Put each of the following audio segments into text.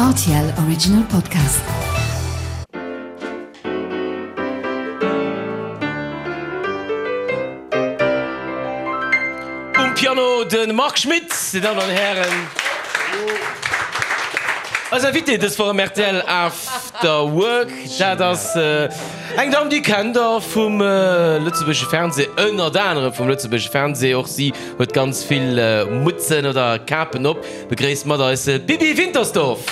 Rtl Original Podcast. Um Piano de Marc Schmitt, Dir Dammen an Hären. Eis Invitée dës Woch am rtl After Work, dat ass eng Damm, déi kennt der vum lëtzebuergesche Fernseh, ënnert anerem vum lëtzebuergesche Fernseh. Och si huet ganz vill Mutzen oder Kapen op. Begréisst mat eis d'Bibi Wintersdorf.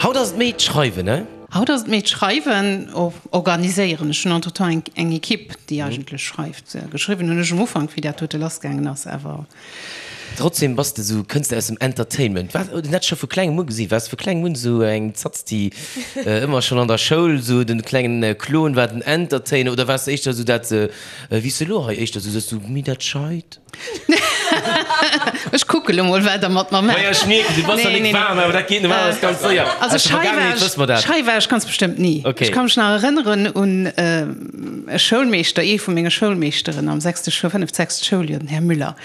Haut ass et méi d'Schreiwen, ne? Haut ass et méi d'Schreiwen, organiséieren. Ech hunn entretemps eng Equipe, déi eigentlech schreift. Geschriwwen hunn ech um Ufank, wéi dat dote lassgaangen ass, awer. Trotzdem bass de sou, kënns de aus dem Entertainment. War dat scho vu klengem u gesi? Waars de vu klengem un sou eng Zatz, déi ëmmer schonn an der Schoul sou den klengen Klon war, den Entertainer, oder waars de éischter sou dat, wéi s de elo hei éischter sou sëtz, sou méi dat Scheit? Ech kucke lo mol, wat der mat mer maacht. Maja, ech mierken, du bass nach nik waarm, awer dat geet normalerweis ganz séier. Also Aus der schei war Vergaangenheet ech, wësse mer dat. schei war ech ganz bestëmmt ni. Okay. Ech ka mech nach erënneren un e Schoulmeeschter, ee vu menge Schoulmeeschteren am sechste, fënneft, sechst Schouljoer, den Här Müller.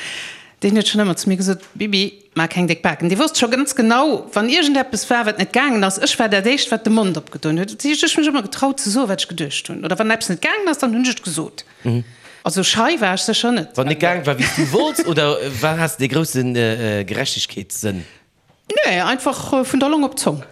Deen huet schonn ëmmer zu mir gesot, Bibi, maach keng déck Baken. Dee wosst scho ganz genau, wann iergendeppes war, wat net gaangen ass, ech war dat Éischt, wat de Mond opgedoen huet. Dat heescht, ech hu mech ëmmer getraut ze soen, wat ech geduecht hunn. Oder wann eppes net gaangen ass, dann hunn ech et gesot. Also schei war ech sécher net. Wann net gaang war, wéi s du wollts, oder war, has de dee grousse Gerechtegkeetssënn? Nee, einfach vun der Long op d'Zong.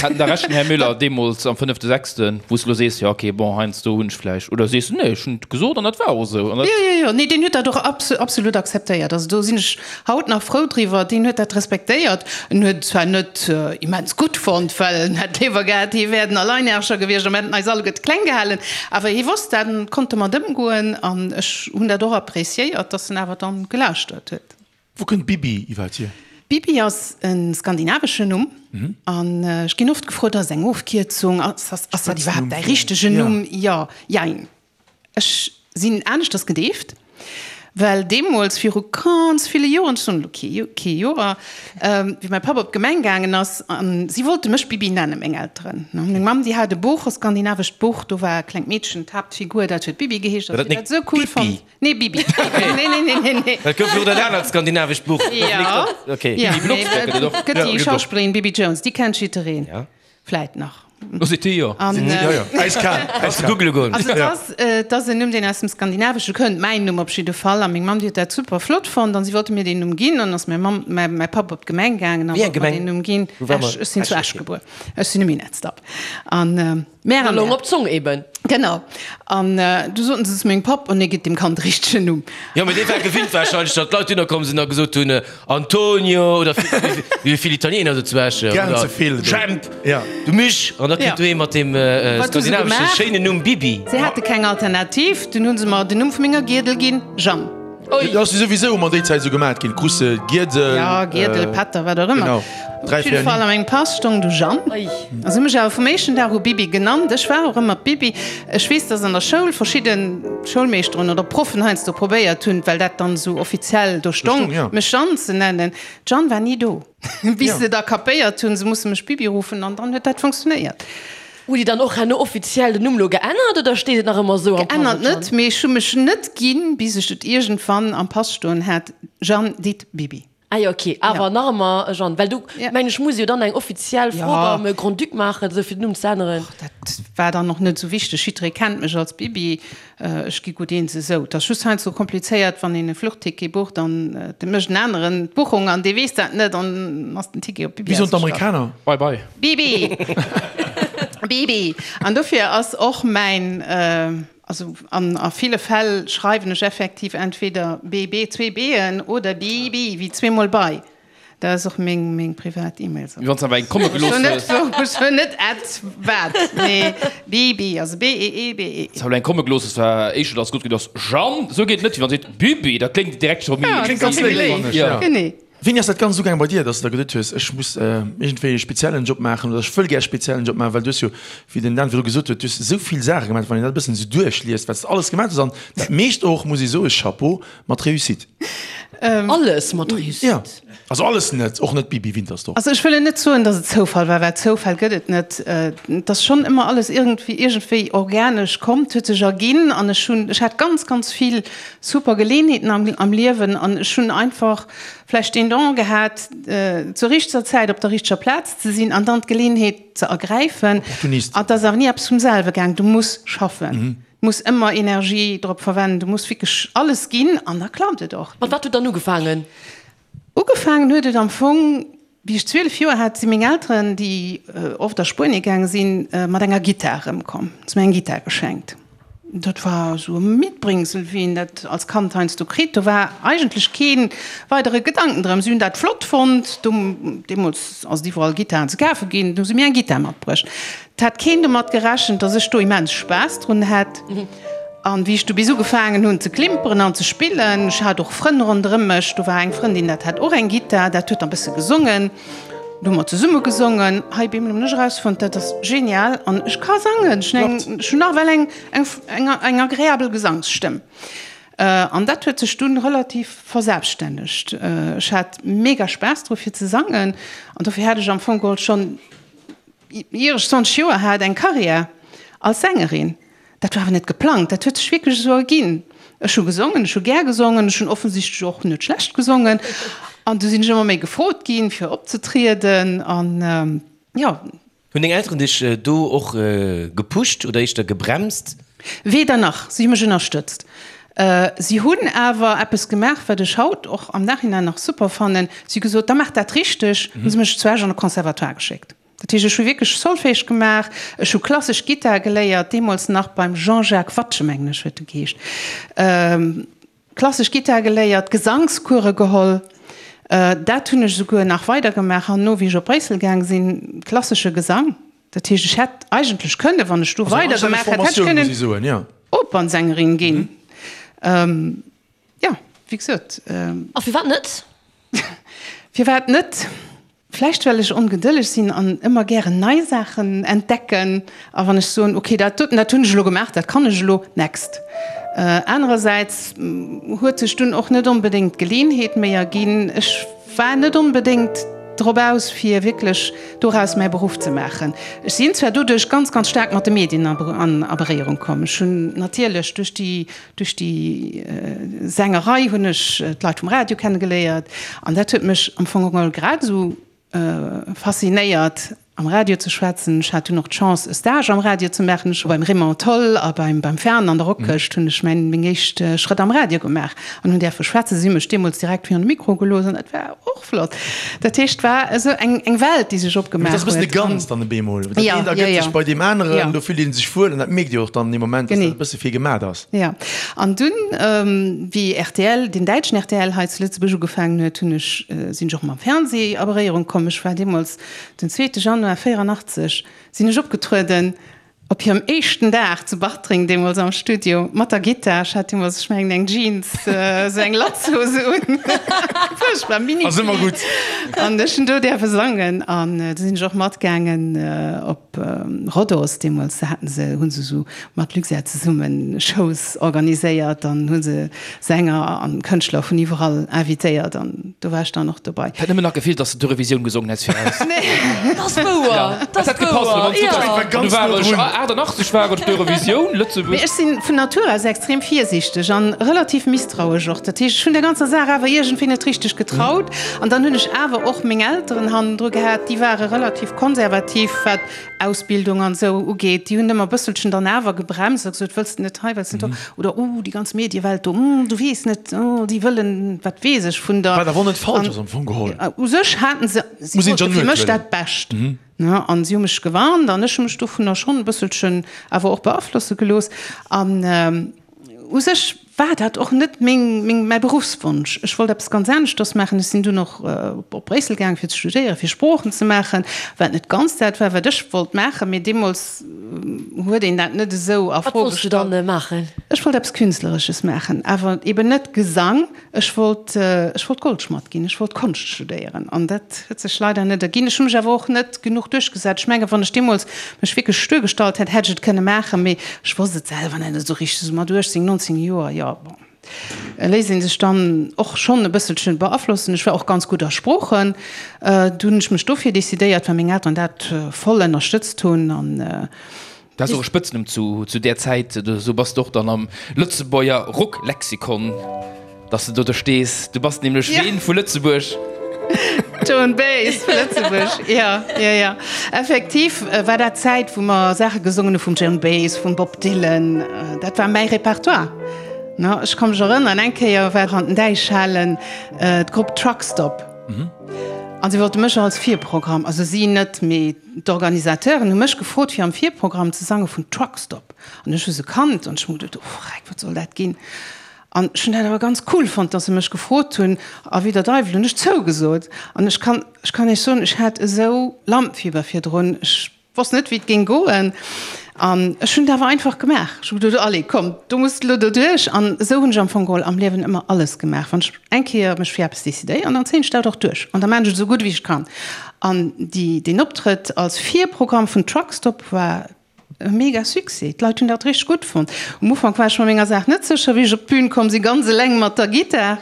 Hat en da Recht, den Här Müller, deemools am fënnefte, sechsten, wou s de elo sees, jo ok, bon, heiansdo hunn ech vläicht, oder sees de, nee, ech hunn et gesot an dat war och esou an dat. Jo, jo, jo, nee, deen huet dat och absolut akzeptéiert. Also do sinn ech haut nach frou driwwer. Deen huet dat respektéiert. En huet et zwar net immens gutt fonnt, well en hätt léiwer gehat, hie wär den Alleinherrscher gewiescht a mir hätten eis alleguerte kleng gehalen. Awer hie wosst dat an konnt domat ëmgoen an ech hunn dat och appréciéiert, dass en awer dann gelauschtert huet. Wou kënnt Bibi iwwerhaapt hier? Bibi ass e skandinaveschen Numm an ech ginn oft gefrot, ass et eng Ofkierzung, ass dat iwwerhaapt däi richtegen Numm? Jo, jein. Ech sinn aneschters gedeeft, well deemools viru ganz ville Joren, ech soen elo kee kee Joer, wéi mäi Papp op d'Gemeng gaangen ass an si wollte mech Bibi nennen, meng Elteren. Meng Mamm, déi hat e Buch, e skandinavescht Buch, do war e klengt Meedchen d'Haaptfigur, dat huet Bibi geheescht, a si huet dat esou cool fonnt. Nee, Bibi. Nee, nee, nee, nee, nee. Dat gouf jo och dat anert skandinavescht Buch. Ja. Okay. Ja, Bibi Blocksberg gëtt et och. Gëtt déi Schauspillerin Bibi Jones, déi kennt jiddereen. Ja. Vläit nach. Oh, seet déi jo. An, Ja, ja. Eiskal. Kannst du googele goen. Also et ass, et ass en Numm, deen aus dem Skandinavesche kënnt, mäin Numm op jidde Fall. A meng Mamm, déi huet dat super flott fonnt an si wollte mir deen Numm ginn. An ass mäi Mamm, mäi, mäi Papp op d'Gemeng gaangen a Wéi eng wollt mer Gemeng? deen Numm ginn. Wou war mer? Esch. Ech sinn zu Esch, Esch okay. gebuer. Ech sinn e Minettsdapp. An, Mär an Long Mär. op d'Zong eben. Genau. An du soten se zu mengem Papp, Oh nee, gitt dem Kand de richtegen Numm. Jo, mee dee war gewinnt warscheinlech, datt d'Leit dunner komm sinn a gesot hunn, Antonio oder wéi vill Italiener do zu Esch, Gern oder ze vill do. Jemp, Ja. du Misch. An da kritt du ee mat deem Wat hu se skandinavesche gemaach? schéinen Numm Bibi. Se hate keng Alternativ, dunn hu se mer den Numm vu menger Giedel ginn, Jeanne. Dat ass jo souwisou ëmmer déi Zäit esou gemat ginn, krus de Giedel. Ja, Giedel, Pätter, wat och ëmmer. Genau, Op jidde Fall a mengem Pass stong du Jeanne. A se hu mech awer vum éischten Dag u Bibi genannt. Ech war och ëmmer d'Bibi. Ech weess, dass an der Schoul verschidde Schoulmeeschteren oder Proffen heiansdo probéiert hunn, well dat dann esou offiziell do stong, mech Jeanne ze nennen. D'Jeanne war ni do, bis se da kapéiert hunn, se musse mech Bibi ruffen an dann huet dat funktionéiert. Hutt Dir dann och herno offiziell den Numm lo geännert oder steet et nach ëmmer esou am Pass? Geännert net, mee ech hu mech net ginn, bis ech et iergendwann am Pass stoen hat, Jeanne dit Bibi. Ah jo, ok, awer nach ëmmer Jeanne, well do mengen ech muss ee jo dann eng offiziell Fro beim Grand-Duc maachen, esou fir den Numm ze änneren. Och dat war dann och net esou wichteg, jidderee kennt mech als Bibi. Ech gi gutt eens esou. Et ass just heiansdo komplizéiert, wann een e Fluchticket bucht an et mécht en aneren d'Buchung an dee weess dat net an ass den Ticket op Bibi Wéi soen ausgestallt. d'Amerikaner? Bye bye. Bibi! Bibi! An dofir ass och mäin, also an a ville Fäll schreiwen ech effektiv entweder BB, zwee B'en, oder Bibi, wéi zweemol bei. Dat ass och meng meng privat E-Mail. Wéi wann s de awer eng komme gelooss hues. Ech hunn net at wat, mee Bibi, also B-E-E-B-E. S awer eng komme gelooss hues, war éischter dass gutt geet ass Jeanne, esou geet et net, wéi wann se seet Bibi, dat kléngt direkt scho méi. Ja, Kléngt ganz léif, fannen ech, ja. Genee. Wéini ass dat Ganzt ugaangen bei dir, dass de der geduet hues, ech muss iergendwéi e speziellen Job maachen oder ech wëll gär e speziellen Job maachen, well du hues jo, wéi den Dan virdru gesot huet, du hues esou vill Saache gemaach, wann een dat e bëssen esou duerchliest, wat s de alles gemaach hues an dat meescht och, muss ee soen, Chapeau, mat Réussite. Alles mat Réussite. Jo, also alles net, och net Bibi Wintersdorf. Also ech wëll net soen, datt et Zoufall war, well Zoufäll gëtt et net. Et ass schonn ëmmer alles iergendwéi iergendwéi organesch komm, et huet sech erginn an ech hunn, ech hat ganz, ganz vill super Geleenheeten am am Liewen an ech hunn einfach vläicht deen Don gehat, zur richteger Zäit op der richteger Plaz ze sinn an dann d'Geleenheet ze ergräifen. Opportunist. An et ass awer ni eppes vum selwe gaang, du muss schaffen. Muss ëmmer Energie drop verwenden, du muss wierklech alles ginn an da klappt et och. Mat wat huet dann ugefaangen? Ugefaangen huet et am Fong, wéi ech 12 Joer hat, si meng Elteren, déi oft a Spuenie gaange sinn, mat enger Gittar erëmkomm. Hu se mir eng Gittar geschenkt. Dat war esou e Mitbringsel, wéi een dat als Kand heiansdo kritt. Do war eigentlech kee weidere Gedanken drëm. Si hunn dat flott fonnt. Deemools ass et iwwerall Gittaren ze kafe ginn. Du hu se mir eng Gittar matbruecht. Et hat keen domat gerechent, dass ech do immens Spaass drun hätt. An wéi ech du bis ugefaangen hunn ze klimperen an ze spillen, ech hat och Frënn ronderëm mech, do war eng Frëndin, dat hat och eng Gittar, dat huet dann bësse gesongen, do hu mer zesumme gesongen. Hei bemol hunn ech erausfonnt, dat ass genial an ech ka sangen, ech hunn eng, ech hunn nawell eng, eng, eng, eng agreabel Gesangsstëmm. An dat huet sech dunn relativ verselbststännegt. Ech hat mega Spaass dru fir ze sangen an dofir hat ech am Fong geholl schonn, Ier ech 20 Joer hat, eng Karriär als Sängerin. Dat war awer net geplangt, dat huet sech wierklech esou erginn. Ech hu gesongen, ech hu gär gesongen, ech hunn offensichtlech och net schlecht gesongen. An du sinn ech ëmmer méi gefrot ginn, fir opzetrieden an jo. Hunn deng Elteren dech do och gepusht oder éischter gebremst? Weder nach, si hu mech ënnerstëtzt. Si hunn awer eppes gemaach, wat ech haut och am Nachhinein nach super fannen, si hu gesot, da maach dat richteg, hu se mech zu Esch an de Conservatoire geschéckt. Dat heescht, ech hu wierklech Solfège gemaach, ech hu klassesch Gittar geléiert, deemools nach beim Jean-Jacques Watsche, mengen ech huet e geheescht, klassesch Gittar geléiert, Gesangskuere geholl. Dat hunn ech esouguer nach weidergemaach herno, wéi ech op Bréissel gaang sinn, klassesche Gesang. Dat heescht, ech hätt eigentlech kënnen, wann ech do weidergemaach hätt, hätt ech kënnen Opernsängerin ginn. Jo, wéi gesot. A firwat net? Firwat net? Vläicht well ech ongedëlleg sinn an ëmmer gären nei Saachen entdecken. A wann ech soen, okay, dat doten, dat hunn ech elo gemaach, dat kann ech elo, next. Anerersäits huet sech dunn och net onbedéngt d'Geleeënheet méi erginn. Ech war net onbedéngt drop aus, fir wierklech doraus mäi Beruff ze maachen. Ech sinn zwar doduerch ganz, ganz staark mat de Medien a Beréierung komm. Ech hunn natierlech duerch déi, duerch déi Sängerei hunn ech d'Leit vum Radio kennegeléiert an dat huet mech am Fong geholl grad esou faszinéiert am Radio ze schwätzen. Ech hat dunn och d'Chance e Stage am Radio ze maachen. Ech hu beim Raymond Tholl a beim beim Fern an der Rockhëscht hunn ech mäin meng éischt Schrëtt am Radio gemaach an hunn däerfe schwätzen. Si hu mech deemools direkt virun de Mikro gelooss an dat war och flott. Dat heescht, et war esou eng eng Welt, déi sech opgemaach huet. Dat ass e bëssen e Ganzt dann op eemol. Dat eent ergëtt sech bei deem aneren, do fillt ee sech wuel an dat mierkt Dir och dann dee Moment, dass dat e bësse fir gemat ass. Jo, an dunn, wéi rtl, den däitschen rtl hei zu Lëtzebuerg ugefaangen huet, hunn ech, sinn ech och mam Fernseh a Beréierung komm. Ech war deemools, den zweete Januar 84, sinn ech opgetrueden op hirem éischten Dag zu Bartreng, deemools am Studio, mat der Gittar. Ech hat deemools, ech mengen, eng Jeans, esou eng Latzhose un, fuerchtbar, Mini. Ass ëmmer gutt. An ech hunn do däerfe sangen an du sinn ech och matgaangen op Rhodos. Deemools haten se, hu se esou mat Luxair zesummen Shows organiséiert an hu se Sänger an Kënschtler vun iwwerall invitéiert an do war ech dann och dobei. Hätt nëmmen nach gefeelt, dass de d'Eurovisioun gesongen häss fir eis. Dat ass wouer, dat ass wouer, jo. Du war ech 88 war ech d'Eurovisioun, Lëtzebuerg. Mee ech sinn vun Natur aus extrem virsiichteg an relativ misstrauesch och. Dat heescht, ech hunn der ganzer Saach awer iergendwéi net richteg getraut. An dann hunn ech awer och meng Elteren hannendru gehat, déi ware relativ konservativ wat Ausbildung an esou ugeet, déi hunn ëmmer e bësselchen dann awer gebremst a gesot, wëlls de net hei, wëlls de net do, oder oh, déi ganz Mediewelt do, hm, du weess net, oh, déi wëllen, wat weess ech vun der. Wat awer och net falsch ass am Fong geholl. U sech haten se, si wollte fir mech dat Bescht, ne, an si hu mech gewarnt an ech hu mech dovunner schonn e bësselchen awer och beaflosse gelooss an u sech war dat och net meng, meng, mäi Beruffswonsch. Ech wollt eppes ganz aneschters maachen. Ech sinn dunn och op Bréissel gaang fir ze studéieren, fir Sproochen ze maachen, wat net ganz dat war, wat ech wollt maachen, mee deemools huet een dat net esou a Wat Fro wollts du gestallt. dann maachen? Ech wollt eppes Künstleresches maachen, awer eben net Gesang. Ech wollt, ech wollt Goldschmadd ginn, ech wollt Konscht studéieren an dat huet sech leider net erginn. Ech hu mech awer och net genuch duerchgesat. Ech mengen, wann ech deemools mech wierklech stuer gestallt hätt, hätt ech et kënne maachen, mee ech wosst et selwer net esou richteg, esou mat 18, 19 Joer, jo, bon. Léisst ee sech dann och schonn e bësselche beaflossen. Ech war och ganz gutt a Sproochen. Du hunn ech mech dofir decidéiert, well meng Elteren dat voll ënnerstëtzt hunn an. Dat ass och e Spëtznumm zu där Zäit. Esou bass de och dann am Lëtzebuerger Rocklexikon, dass de do do stees. Du bass nämlech ween vu Lëtzebuerg? Joan Baez vu Lëtzebuerg, jo, jo, jo. Effektiv war dat d'Zäit, wou mer Saache gesongen hu vum Joan Baez, vum Bob Dylan. Dat war mäi Repertoire. Ech ka mech erënneren, eng Kéier war an den Däichhalen d'Grupp Truck Stop. An si wollte mech als Virprogramm, also si net, mee d'Organisateuren hu mech gefrot, fir am Virprogramm ze sange vun Truck Stop. An ech hu se kannt an ech hu geduet, oh Freck, wat soll dat ginn? An ech hunn dat awer ganz cool fonnt, dass se mech gefrot hunn. A wéi der Deiwel hunn ech zougesot. An ech kann, ech kann Iech soen, ech hat esou Lampenfieber virdrun. Ech Wosst net wéi et géing goen an ech hunn et awer einfach gemaach. Ech hu geduet, allez komm, do muss de elo doduerch. An esou hunn ech am Fong geholl am Liewen ëmmer alles gemaach. Wann ech eng Kéier mech fir eppes decidéieren, dann zéien ech dat och duerch an da maachen ech et esou gutt wéi ech kann. An déi, deen Optrëtt als Virprogramm vun Truck Stop war e mega Succès. D'Leit hunn dat richteg gutt fonnt. Um Ufank war ech mer menger Saach net sécher, wéi ech op d'Bün komm sinn, ganz eleng mat der Gittar.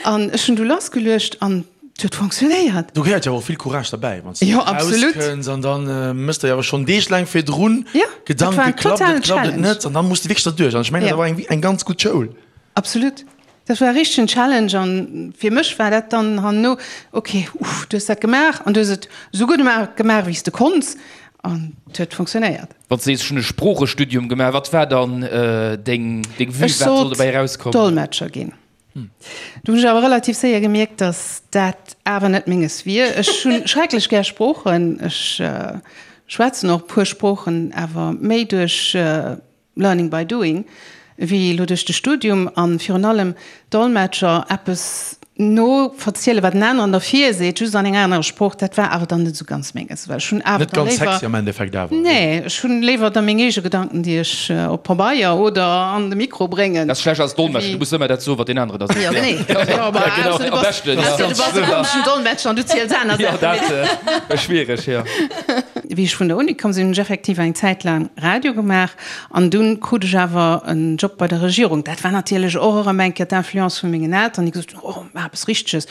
An ech hunn du lassgeluecht an Et huet fonctionnéiert. Do gehéiert jo awer och vill Courage derbäi, wann s de erauskënns an da méchs de jo awer schonn deeglaang virdrun Gedanken, klappt et, klappt et net, an da muss de wierklech derduerch. An ech mengen, dat war eng ganz gutt Schoul. Absolut. Dat war e richtegen Challenge an fir mech war dat dann herno, ok, uff, du hues dat gemaach an du hues et esou gutt gemaach, wéi s de konns an et huet fonctionnéiert. Wann s de sees, ech hunn e Sproochestudium gemaach, wat war dann deng Vue, wat soll dobäi erauskommen? Ech sollt Dolmetscher ginn. Du hunn ech awer relativ séier gemierkt, dass dat awer net menges wier. Ech hunn schrecklech gär Sproochen. Ech schwätzen och e puer Sproochen, awer méi duerch learning by doing wéi elo duerch de Studium. A virun allem Dolmetscher, eppes no verzielen, wat en aneren der virseet, just an enger anerer Sprooch, dat war awer dann net esou ganz menges. Well ech hunn awer Net ganz sexy am Endeffekt awer. Nee, ech hunn léiwer da meng eege Gedanken, déi ech op Pabeier oder an de Mikro bréngen. Dat ass schlecht als Dolmetscher, du muss ëmmer dat soen, wat deen anere da seet. Jo, genee. Jo, ma ausser du bass, ausser du bass e komeschen Dolmetscher an du ziels aner Saachen. Jo, dat wär schwiereg, jo. Wéi ech vun der Uni komm sinn, hunn ech effektiv eng Zäit laang Radio gemaach an dunn krut ech awer en Job bei der Regierung. Dat war natierlech och erëm eng Kéier d'Influence vu mengen Eltern, déi gesot hunn, oh, maach eppes Richteges.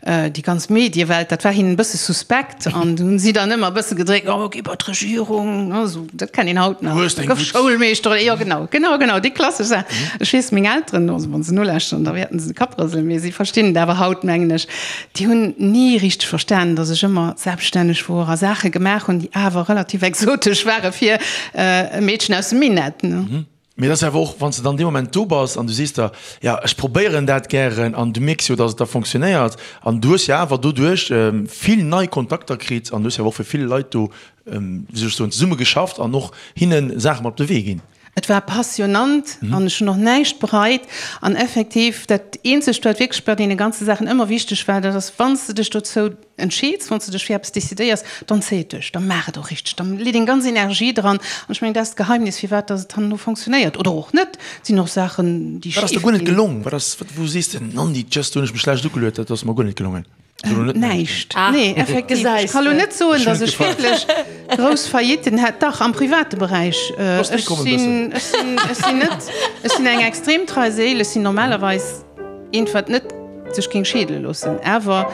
Déi ganz Mediewelt, dat war hinnen e bësse suspekt an du hunn si dann ëmmer e bësse gedréckt, oh, gi bei d'Regierung, ne, esou, dat kennt een haut nach. Gouf Schoulmeeschter oder, jo genau, genau, genau, déi klassesch Saach. Ech weess, meng Elteren, also wa se nolauschteren, da wäerten se de Kapp rëselen, mee si verstinn et awer haut, mengen ech, déi hunn ni richteg verstanen, datt ech ëmmer selbststänneg wor a Saache gemaach hunn, déi awer relativ exotesch ware fir e Meedchen aus dem Minett, ne. Mee et ass awer och, wann s de dann dee Moment do bass an du sees der, jo, ech probéieren dat gären an du mierks jo, datt et da fonctionnéiert an du hues jo awer doduerch vill nei Kontakter kritt an du hues jo awer och fir vill Leit do, wéi soll ech soen, zesumme geschafft an och hinne Saache mat op de Wee ginn. Et war passionnant an ech hunn och näischt bereit. An effektiv, dat eenzegt, wat wierklech bei deene ganze Saachen ëmmer wichteg war, dat ass, wann s de dech dozou entscheeds, wann s de dech fir eppes decidéiers, dann zéi et duerch, da maach et och richteg, da lee deng ganz Energie dran. An ech mengen, dat ass d'Geheimnis, firwat dass et herno fonctionnéiert oder och net. Et sinn och Saachen, déi Wat ass der schif guer net ginn. gelong? Wat ass, wou sees de, Nandi, just do hunn ech mech schlecht ugeluet, dat ass mer guer net gelongen? Näischt. Nee, effektiv. Ech ka lo net soen, datt ech wierklech grouss Faillitten hätt. Dach, am private Beräich. Ech sinn, ech sinn, ech sinn net, ech sinn eng extrem trei Séil. Ech sinn normalerweis eent, wat net sech géing scheedele loossen. Awer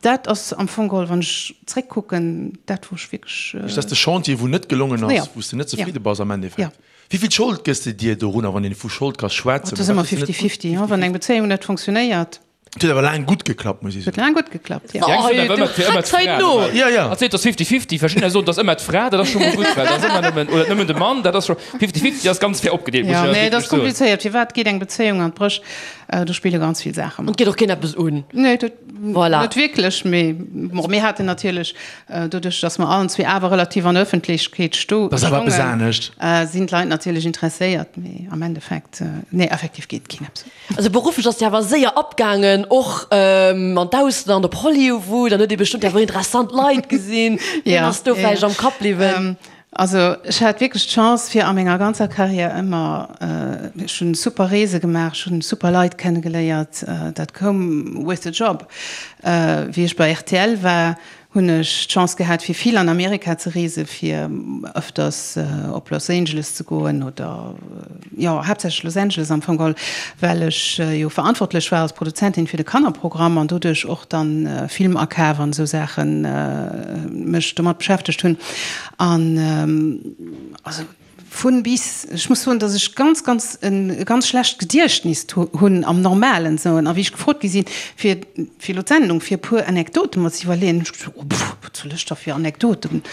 dat ass am Fong geholl, wann ech zréckkucken, dat, wou ech wierklech. Dat ass de Chantier, wou net gelongen ass, wou s de net zefridde bass am Endeffekt. Wéi vill Schold gëss de dir dorunner, wann een vu Schold ka schwätzen? Dat ass ëmmer fifty-fifty, wann eng Bezéiung net funktionéiert. Et huet awer laang gutt geklappt, muss ech soen. Huet laang gutt geklappt, jo. Oh, du hacks hei no! Jo, jo. Hatt seet, et ass fifty-fifty. Verschiddener soen, et ass ëmmer d'Fra, dat ass scho mol gutt, well dat ass ëmmer nëmmen, oder nëmmen de Mann, dat ass scho, fifty-fifty ass ganz fair opgedeelt, muss ech Jo, nee, et ass komplizéiert. Firwat geet eng Bezéiung an d'Bréch? Do spille ganz vill Saache mat. An et geet och keen eppes un. Nee, dat voilà. Net wierklech, mee bon, mir haten natierlech, doduerch datt mer allen zwee awer relativ an der Ëffentlechkeet sto, Dat ass awer eppes anescht. sinn d'Leit natierlech interesséiert, mee am Endeffekt, nee, effektiv geet keen eppes un. Also berufflech ass Dir awer séier abgaangen, och an d'Ausland, op Hollywood, an huet Dir bestëmmt awer interessant Leit gesinn. Wien ass do vläicht am Kapp bliwwen? Also ech hat wierklech d'Chance fir a menger ganzer Carrière ëmmer, ech hunn super Reese gemaach, ech hunn super Leit kennegeléiert, dat koum with the job. Wéi ech bei rtl war, Hunn ech d'Chance gehat fir vill an Amerika ze reesen, fir ëfters op Los Angeles ze goen oder jo haaptsächlech Los Angeles am Fong geholl, well ech jo verantwortlech war als Produzentin fir de Kannerprogramm an doduerch och dann Filmakaf an esou Saachen mech domat beschäftegt hunn an also Vun bis. Ech muss soen, dass ech ganz, ganz e ganz schlecht Gediechtnis hunn am normalen Sënn. A wéi ech gefrot gi sinn, fir fir elo d'Sendung, fir e puer Anekdote mer ze iwwerleeën, hunn ech gesot, oh pff, wat soll ech da fir Anekdoten,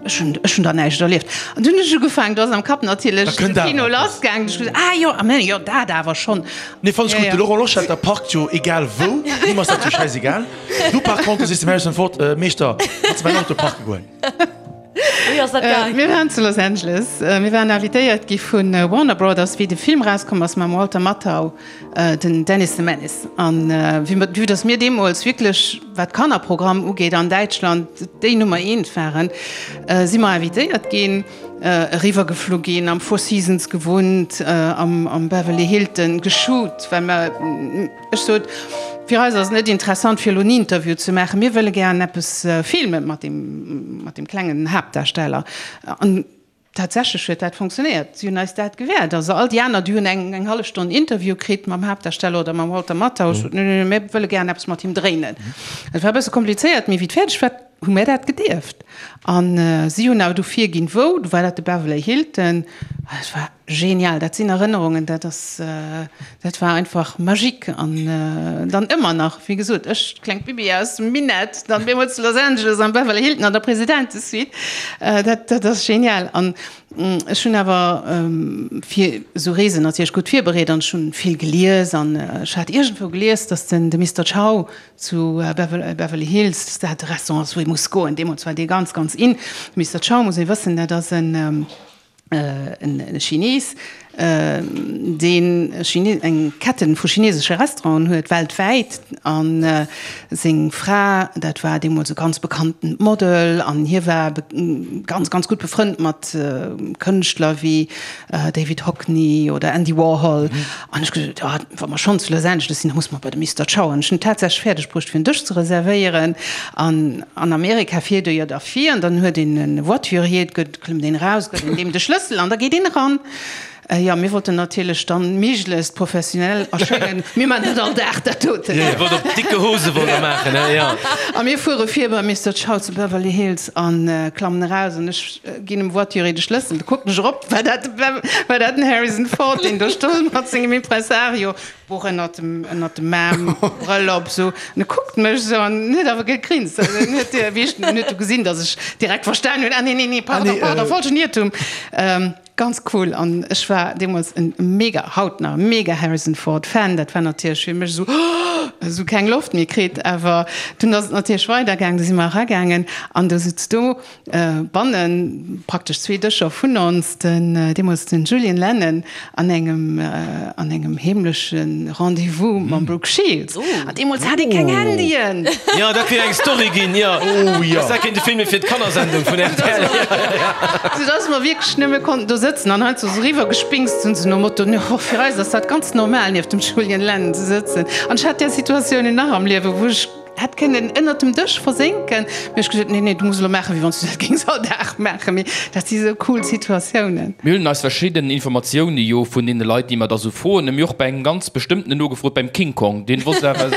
ech hunn, ech hunn der näischt erlieft. An dunn hunn ech ugefaangen, do ass am Kapp natierlech de Kino lassgaangen, ech gesot, ah jo, ah mä jo, dat awer schonn. Nee, fannen ech gutt. De Laurent Loschetter parkt jo egal wou, him ass dat jo schäisegal. Du par contre sees dem Harrison Ford, Meeschter, kanns de mäin Auto parke goen? Wéi ass dat gaang? Mir waren zu Los Angeles. Mir waren invitéiert gi vu Warner Brothers, wéi de Film erauskomm ass mam Walter Matthau, den Dennis the Menace. An vue dass mir deemools wierklech, wat Kannerprogramm ugeet an Däitschland, déi Nummer eent waren, si mer invitéiert ginn, eriwwergeflu ginn, am Four Seasons gewunnt, am Beverly Hilton geshoot, well mer, Ech sot, fir eis ass et net interessant fir elo en Interview ze maachen, mir wëlle gären eppes filmen mat deem, mat deem klengen Haaptdarsteller. An tatsächlech huet dat funktionéiert, si hunn eis dat gewäert. Also all déi aner, déi hunn eng, eng hallef Stonn Interview kritt mam Haaptdarsteller oder mam Walter Matthau. Ech sot, nee, nee, nee, mir wëlle gären eppes mat him dréinen. Et war e bësse komplizéiert, mee wéi et fäerdeg war, hu mir dat gedierft. An si hunn awer du virginn, wou, du war dat de Beverly Hilton. Et war Genial, dat sinn Erënnerungen, dat ass, dat war einfach magique an dann ëmmer nach, wéi gesot, ech, klengt Bibi aus dem Minett, dann deemools zu Los Angeles am Beverly Hilton an der Presidentesuite, dat, dat ass genial. An ech hunn awer fir esou Reesen natierlech gutt virbereet an ech hunn vill gelies an ech hat iergendwou gelies, datt den, de Mister Chow zu Beverly Hills, datt dat de Restaurant ass, wou ee muss goen. Deemools war dee ganz, ganz in. De Mister Chow, muss ee wëssen, dat ass en, En Chines, deen eng Ketten vu chinesesche Restauranten huet weltwäit, a seng Fra, dat war deemools e ganz bekanntent Model, an hie war ganz, ganz gutt befrënnt mat Kënschtler wéi David Hockney oder Andy Warhol. An ech gesot, jo, wa mer schonn zu Los Angeles sinn, da musse mer bei de Mister Chow. An ech hunn et tatsächlech fäerdeg bruecht, fir en Dësch ze reservéieren. An an Amerika fiert e jo da vir, an dann huet een e Voiturier, et gëtt, klëmmt een eraus, gëtt een deem de Schlëssel an da geet een eran. Jo, mir wollten natierlech dann méiglechst professionell erschéngen. Mir maachen dat all Dag, dat doten. Dir wollt op dicke Hose wollt der maachen, he? Jo. A mir fuere vir beim Mister Chow zu Beverly Hills a klammen eraus an ech ginn dem Voiturier de Schlëssel. Da kucken ech erop, war dat, war dat den Harrison Ford, deen do stoung mat sengem Impresario, Buch ënnert dem, ënnert dem Aarm, Brëll op, esou. An e kuckt mech esou an huet awer gegrinst. Also en huet, wéi ech, en huet du gesinn, datt ech direkt verstan hunn, ah nee, nee, nee, pardon, pardon, falschen Iertum. Ganz cool. An ech war deemools en mega, haut nach, mega Harrison Ford Fan. Dat war natierlech fir mech esou, esou keng Loft méi kritt. Awer dunn ass et natierlech weidergaangen, du si mer eragaangen an du sutz do Bannen, praktesch zwee Dëscher vun ons, den deemools den Julian Lennon an engem an engem heemleche Rendez-vous mam Brooke Shields. An deemools hat ee keng Handyen! Jo, dat wier eng Story ginn, jo. Dass dat kéint e Film fir d'Kannersendung vun rtl. Sou dass mer wierklech nëmme konnten do sëtzen an heiansdo sou eriwwer gespinkst hunn, sou nom Motto, Jo, fir eis ass dat ganz normal, nieft dem Julian Lennon ze sëtzen. An ech hat där Situatiounen nach am Liewen, wou ech. Hätt kënnen ënnert dem Dësch versénken. Mee ech gesot, nee, nee, du muss elo maachen, wéi wann s du dat géings all Dag maachen. Mee dat si sou cool Situatiounen. Mir hunn eis verschidden Informatioune jo vun deene Leit, déi mer da sou froen. Mir hu och bei engem ganz bestëmmtenen nogefrot, beim King Kong. Deen wosst awer,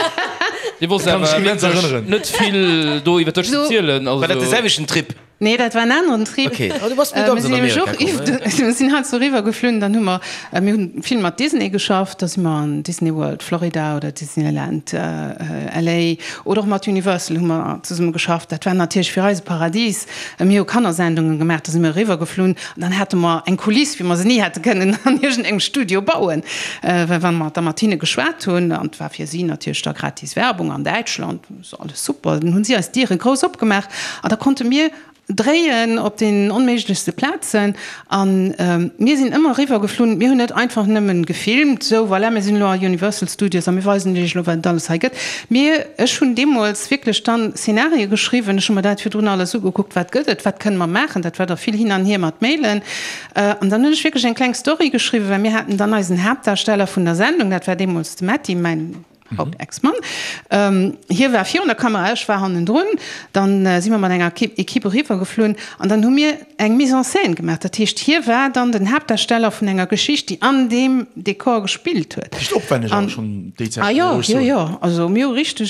dee wosst awer wierklech net vill do iwwer dech ze zielen. War dat de selwechten Trip? Nee, dat war en aneren Trip. Okay. Oh, du bass net ganz an Amerika komm, ne? Mir sinn heiansdo eriwwer geflunn, dann hu mer, mir hunn vill mat Disney geschafft, da si mer an Disney World Florida oder Disneyland LA oder och mat Universal hu mer zesumme geschafft. Dat war natierlech fir eis e Paradis. Mir hu Kannersendungen gemaach, da si mer eriwwer geflunn an dann hate mer eng Kuliss, wéi mer se ni hätte kënnen an iergendengem Studio bauen, well wa mer da mat hinne geschwat hunn, an et war fir si natierlech da gratis Werbung an Däitschland, So alles super. Dann hunn si eis d'Diere grouss opgemaach an da konnte mir dréien op den onméiglechste Plazen. An mir sinn ëmmer eriwwer geflunn. Mir hunn net einfach nëmmen gefilmt, sou voilà, mir sinn elo a Universal Studios a mir weisen iech elo, wat et alles hei gëtt. Mir, ech hunn deemools wierklech dann Szenarie geschriwwen. Ech hu mer dat virdrun alles ugekuckt, wat gëtt et, wat kënne mer maachen. Dat war da vill hin an hier mat Mailen. An dann hunn ech wierklech eng kleng Story geschriwwen, well mir haten dann eisen Haaptdarsteller vun der Sendung, dat war deemools de Metty, mäin. Haut Ex-Mann. Hie war virun der Kamera, ech war hannendrun. Dann si mer mat enger Equipe eriwwer geflunn an dann hu mir eng Mise en scène gemaach. Dat heescht, hie war dann den Haaptdarsteller vun enger Geschicht, déi an deem Dekor gespillt huet. Richteg opwänneg awer schonn déi Zäit, Ah jo, jo, jo. Also mir hu richteg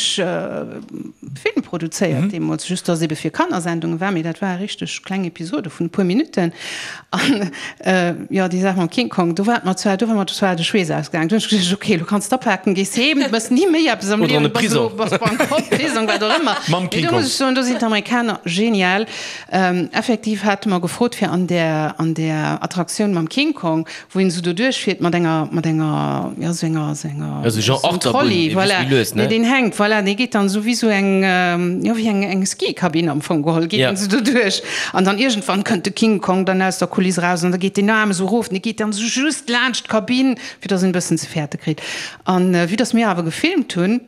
Film produzéiert deemools, just dass ebe fir Kannersendunge war, mee dat ware richteg kleng Episode vun e puer Minutten. An jo, déi Saach mam King Kong, do war et mer zwar, do war mer zwar de Schweess ausgaangen. Do hunn ech geduecht, ok, elo kanns d'apaken, gees heem, du méchs ni méi eppes am Oder an Liewen, de bass elo, Prisong. bass bankrott, Prisong, wat och ëmmer. Mam Mee King do Kong. muss ech soen, do sinn d'Amerikaner genial. Effektiv hate mer gefrot, fir an där, an där Attraktioun mam King Kong, wou een esou doduerch fiert mat enger, mat enger, jo, esou enger, esou enger, Ja, esou genre esou en Achterbunn, Trolley, ee voilà, bësse méi lues, ne? nee, deen hänkt, voilà, dee geet dann esou wéi esou eng, jo, wéi eng, eng Skikabinn am Fong geholl, geet Ja. en esou doduerch. An dann iergendwann kënnt de King Kong dann aus der Kuliss eraus an da geet deen Aarm esou erof, an dee geet dann esou just laanscht d'Kabinn, fir dass en e bëssen ze fäerte kritt. An vue dass mir awer gefilmt hunn,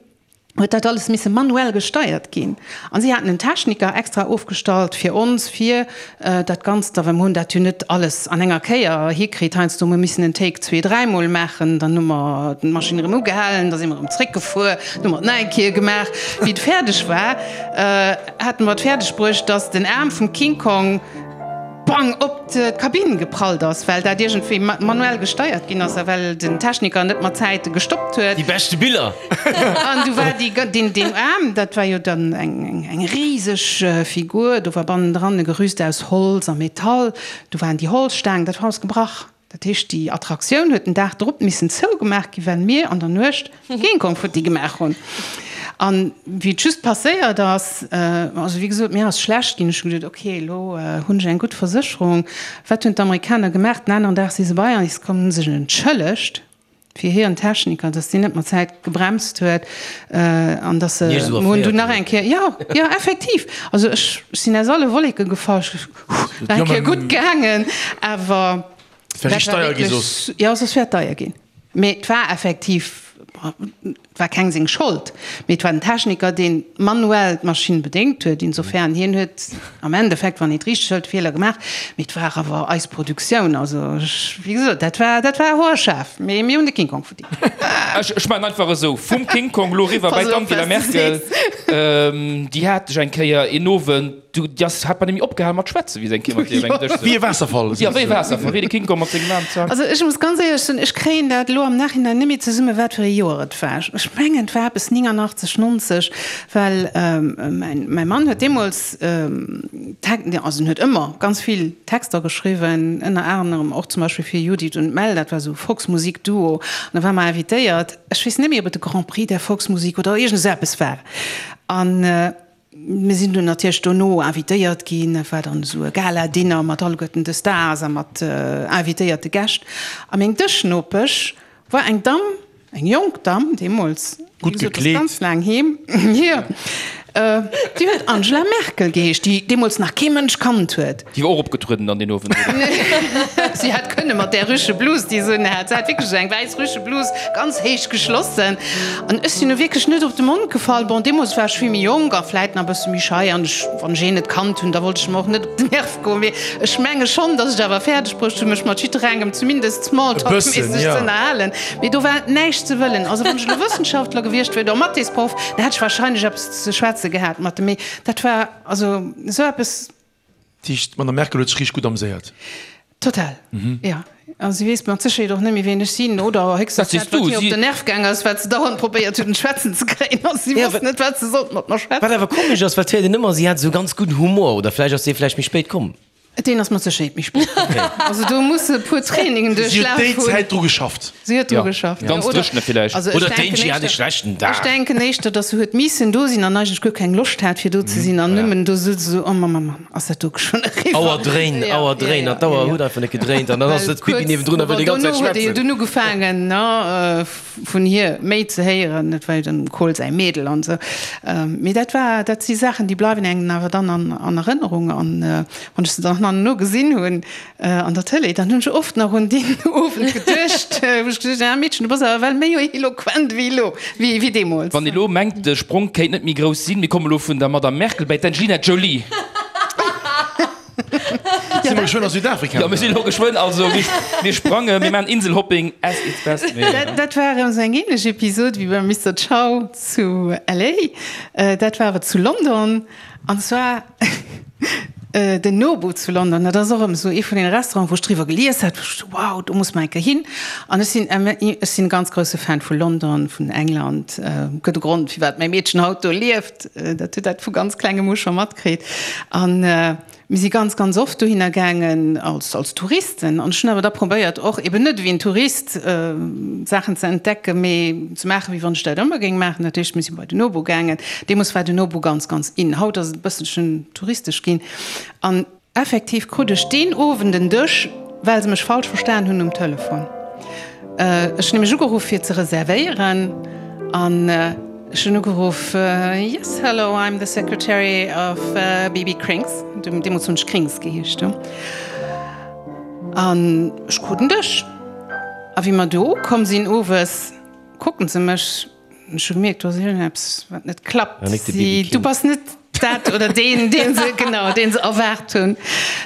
huet dat alles misse manuell gesteiert ginn. An si haten en Techniker extra ofgestallt fir ons, fir dat Ganzt da, well mer hunn dat jo net alles an enger Kéier hikritt. Heiansdo hu mer missen en Take zwee, dräimol maachen, dann hu mer d'Maschinn erëm ugehalen, da si mer erëm zréckgefuer, dann hu mer et nach eng Kéier gemaach. Wéi et fäerdeg war, hate mer et fäerdeg bruecht, dass den Aarm vum King Kong, bang op d'Kabinn geprallt ass, well dat iergendwéi manuell gesteiert ginn ass a well den Techniker net mat Zäite gestoppt huet. Déi beschte Biller! An du war déi, deen, deen Aarm, dat war jo dann eng, eng riseg Figur, do war bannendran e Gerüst aus Holz a Metall, do waren déi Holzstaangen, dat war alles gebrach. Dat heescht, déi Attraktioun huet den Dag drop missen zougemaach ginn, well mir an der Nuecht King Kong futti gemaach hunn. An wéi et just passéiert ass, also wéi gesot, mir ass schlecht ginn, ech hu geduet, ok, elo hunn ech eng gutt Versécherung. Wat hunn d'Amerikaner gemaach? Den aneren Dag si se bei eis komm, hunn sech entschëllegt fir hiren Techniker, dass deen net mat Zäit gebremst huet an dass se, mir hunn dunn nach eng Kéier, jo, jo, effektiv, also ech sinn aus alle Wolleke gefall, ech Nach eng Kéier gutt gaangen, awer Et wär richteg deier gi soss. Jo, soss wär et deier ginn. Mee et war effektiv, et war keng seng Schold, mee et war den Techniker, deen manuell d'Maschinn bedéngt huet. Insofern, hien huet am Endeffekt, wann een et richteg hëlt, Feeler gemaach. Mee et war awer eis Produktioun. Also ech, wéi gesot, dat war, dat war hoerscharf. Mee mir hunn de King Kong verdingt. Ech maachen einfach esou, vum King Kong elo eriwwer bei d'Angela Merkel. Déi hat ech eng Kéier een Owend. Du, déi ass, hat bei nemmi opgehal mat schwätzen, wéi se eng Kéier mat dir op engem Dësch souz. Wéi e Waasserfall. Jo, wéi e Waasserfall, wéi de King Kong mat sengem Aarm zankt. Also ech muss ganz éierlech soen, ech kréien dat elo am Nachhinein net méi zesummen, wat fir e Joer et war. Ech mengen, et war eppes 89, 90, well mäin, mäi Mann huet deemools Tek, also en huet ëmmer ganz vill Texter geschriwwen, ënner anerem och zum Beispill fir Judith und Mel, dat war esou e Volksmusik-Duo, an da war mer invitéiert, ech weess net méi, ob et de Grand Prix der Volksmusik oder iergend esou eppes war. An Mir sinn dunn natierlech dono invitéiert ginn. Et war dann esou e Gala-Dinner mat alleguerten de Stars a mat invitéierte Gäscht. A meng Dëschnopesch war eng Damm, eng jonk Damm deemools, wéi Gutt gesot, ass gekleet. ganz laang heem, hier, déi huet Angela Merkel geheescht, déi deemools nach kee Mënsch kannt huet. Déi war och opgetrueden dann deen Owend, oder? Si hätt kënne mat där Rüscheblus, déi se unhat. Se hat wierklech esou eng wäiss Rüscheblus, ganz héich geschlossen. An ech sinn nu wierklech net op de Mond gefall. Bon, deemools war ech vill méi jonk a vläit nach e bësse méi schei an ech, wann ech een net kannt hunn, da wollt ech em och net op den Nerv goen. Mee ech menge schonn, dass ech awer fäerdeg bruecht hunn, mech mat jidderengem zumindest smalltalk-méisseg ze ënnerhalen. Mee do war näischt ze wëllen. Also wann ech elo Wëssenschaftler gewiescht wier oder Mathésproff, da hätt ech wahrscheinlech eppes ze schwätze gehat mat em. Mee dat war also esou eppes. Dat heescht, d'Madame Merkel huet sech richteg gutt ameséiert? Total, jo. A si weess mat Sécherheet och net méi, wien ech sinn, oder héchstens dat, wat hir op den Nerv gaang ass, wat se dauernd probéiert huet, en schwätzen ze kréien, a si wosst net, wat se sollt mat mer schwätzen. Wat awer komesch ass, well et héiert een ëmmer, si hat esou ganz gudden Humor, oder vläicht ass dee vläicht méi spéit komm. Deen ass mat Sécherheet méi spéit komm. Also do muss se e puer Trainingen Si huet duerchlaf déi hunn. Zäit dru geschafft. Si huet dru geschafft. Ganz dréchene villäicht. Also ech Oder denken d'Angie hat e éischter, schlechten Dag. ech denken éischter, dass se huet missen do sinn an eigentlech guer keng Loscht hat fir do ze sinn an nëmmen do sot se esou, oh Mamm, Mamm, ass dat do schonn eriwwer? Auer dréin, Ja, Auer ja, dréin ja, an d'Auer ja, ja. huet einfach net gedréint an dann ass Well sëtzt d'Bibi kuerz, niewendrun a wëll bon, déi ganz dono Zäit huet ee jo schwätzen. dunn ugefaangen, ne, vun hir méi ze héieren, et war jo dem Kohl säi Mädel an esou. Mee dat war, dat si Saachen, déi bleiwen engem awer dann an, an Erënnerung an wann ech se dann herno gesinn hunn, An der Tëlee, dann hunn ech oft nach un deen Owend geduecht, wou ech geduecht hunn, ah Meedchen, du bass awer well méi eloquent wéi elo, wéi deemools. Wann ee lo mengt, de Sprong kéint net méi grouss sinn, mir komme lo vun der Madame Merkel bäi d'Angelina Jolie. Si mer geschwënn a Südafrika? Jo, mir sinn elo geschwënn, also mir sprangen, mir maachen Inselhopping as its best. Dat war erëm esou eng ähnlech Episod wéi beim Mister Chow zu LA. Dat war awer zu London an zwar den Nobu zu London. Dat ass och erëm esou ee vun deene Restauranten, wou ech driwwer gelies hat, wou ech sou, wow, do muss mer eng Kéier hin. An ech sinn, ech sinn e ganz grousse Fan vu London, vun England. Gëtt e Grond, firwat mäi Meedchen haut do lieft. Dat huet dat vu ganz klengem u scho matkritt. An Mir si ganz, ganz oft dohinner gaangen als, als Touristen. An ech hunn awer da probéiert, och eben net ewéi en Tourist Saachen ze entdecken, mee ze maachen, wéi wann ech dat ëmmer géing maachen. Dat heescht, mir si bei den Nobu gaangen. Deemools war den Nobu ganz, ganz in. Haut ass et e bësselchen touristesch ginn. An effektiv krut ech deen Owend en Dësch, well se mech falsch verstan hunn um Telefon. Ech hunn nämlech ugeruff, fir ze reservéieren. An. Ech hunn ugeruff, Yes, hello, I'm the secretary of BB Krings. Deemools hunn ech Krings geheescht. An ech krut en Dësch. A wéi mer do ukomm sinn owes, kucken se mech. Ech hu gemierkt, do ass iergendeppes, wat net klappt. Si, du bass net dat oder deen, deen se, genau, deen se erwaart hunn.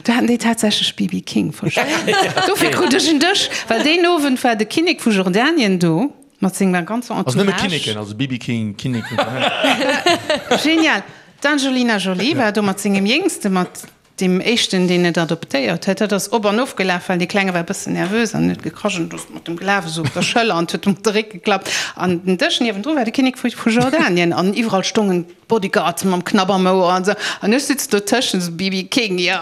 Do haten déi tatsächlech BB King verstanen. Dofir krut ech en Dësch, well deen Owend war de Kinnek vu Jordanien do. Mat senger ganzer Entourage. Also nëmme Kinneken, also BB King, Kinneken. Genial! D'Angelina Jolie war do mat sengem Jéngste, mat deem éischten, deen et adoptéiert huet. Dat ass op an of gelaf, well dee Klenge war e bëssen nervös an huet gekrasch an ass mat dem gelaf, esou op der Schëller an huet em op de Réck geklappt. An den Dësch niewendru war de Kinnek vu Jordanien an iwwerall stongen d'Bodyguards mam Knapp am Ouer an esou. An ech sitz dotëschent, esou BB King, jo.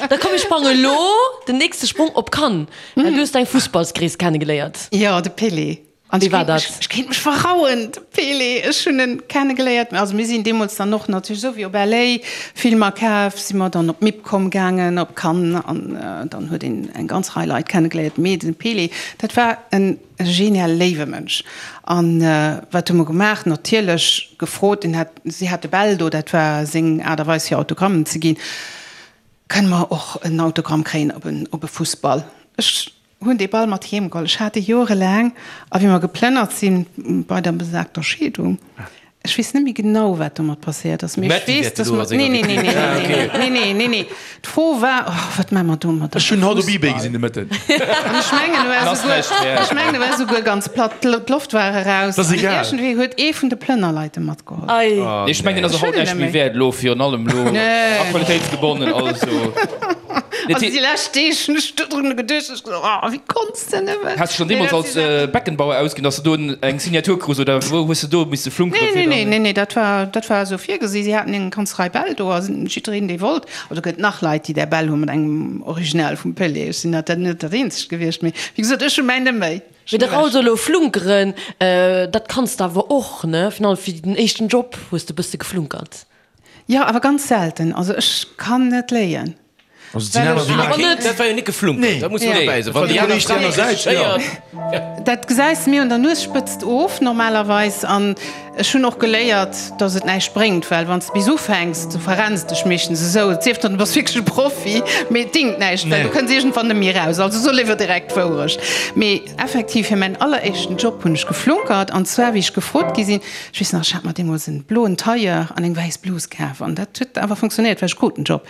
Da komm, mir sprange lo den nächste Sprong op Cannes. Well du hues deng Fussballsgrees kennegeléiert. Jo, de Pelé. An wéi war dat? Ech kéint mech verrauen, de Pelé, ech hunn en kennegeléiert. Also mir sinn deemools dann och natierlech, esou wéi op LA Filmer kaf, si mer dann op MIPCOM gaangen, op Cannes, an dann huet een eng ganz Rei Leit kennegeléiert. Mee de Pelé, dat war en genial léiwe Mënsch. An wat hu mer gemaach? Natierlech gefrot, en hat, si hate Bäll do, dat war seng Aart a Weis fir Autogrammen ze ginn. Kënne mer och en Autogramm kréien op en op e Fussball? Ech hunn dee Ball mat heem geholl. Ech hat e jorelaang. A wéi mer geplënnert sinn, bei der besagter Scheedung, ech weess net méi genau, wat domat passéiert ass, mee ech weess, dass mer, nee, nee, nee, nee, nee, nee, nee, nee, nee, d'Fro war, oh, wat maache mer domadder? Ech hunn haut op Ebay gesinn de Mëtten. An ech mengen, e war souguer, ech mengen, e war souguer ganz platt, d'Loft war eraus. Dat ass egal. An iergendwéi huet ee vun de Plënnerleit e matgeholl. Geholl. Ech mengen ass och haut näischt méi wäert elo, virun allem elo aktualitéitsgebonnen also. Also déi lescht Deeg hunn ech dodrun geduecht, ech gesot, oh wéi konns de nëmmen. Has de schonn deemools als Beckenbauer ausginn, datt s de do eng Signatur krus oder wou hues de do misse flunkeren fir dann? Nee, nee, nee, dat war, dat war esou virgesi. Si haten eng ganz Rei Bäll do a jiddereen dee wollt, also gëtt nach Leit déi där Bäll hu mat engem Original vum Pelé, ech sinn dat net dat eenzegt gewiescht, mee wéi gesot ech hu mäin net méi. Mee de Raoul soll elo flunkeren, dat kanns de awer och, ne? Virun allem fir den éischten Job hues de bësse geflunkert. Jo, awer ganz selten. Also ech kann net léien. Also et sinn aner, déi maachen. Awer dat war jo net geflunkert, dat muss een dobäi soen. Wann déi aner Fra réussisséiert. Dat gesäis de mir un der Nuesspëtzt of normalerweis. An ech hunn och geléiert, dass et näischt bréngt, well wann s de bis ufänks, du verrenns dech meeschtens esou, et sief dann, du bass wierklech e Profi, mee et dingt näischt, well du kënns iergendwann net méi eraus. Also so léiwer direkt d'Wourecht. Mee effektiv, fir mäin alleréischten Job hunn ech geflunkert, an zwar wéi ech gefrot gi sinn, ech weess nach, ech hat mer deemools en bloen Tailleur an eng wäiss Blus kaf an dat huet awer funktionéiert, well ech krut den Job.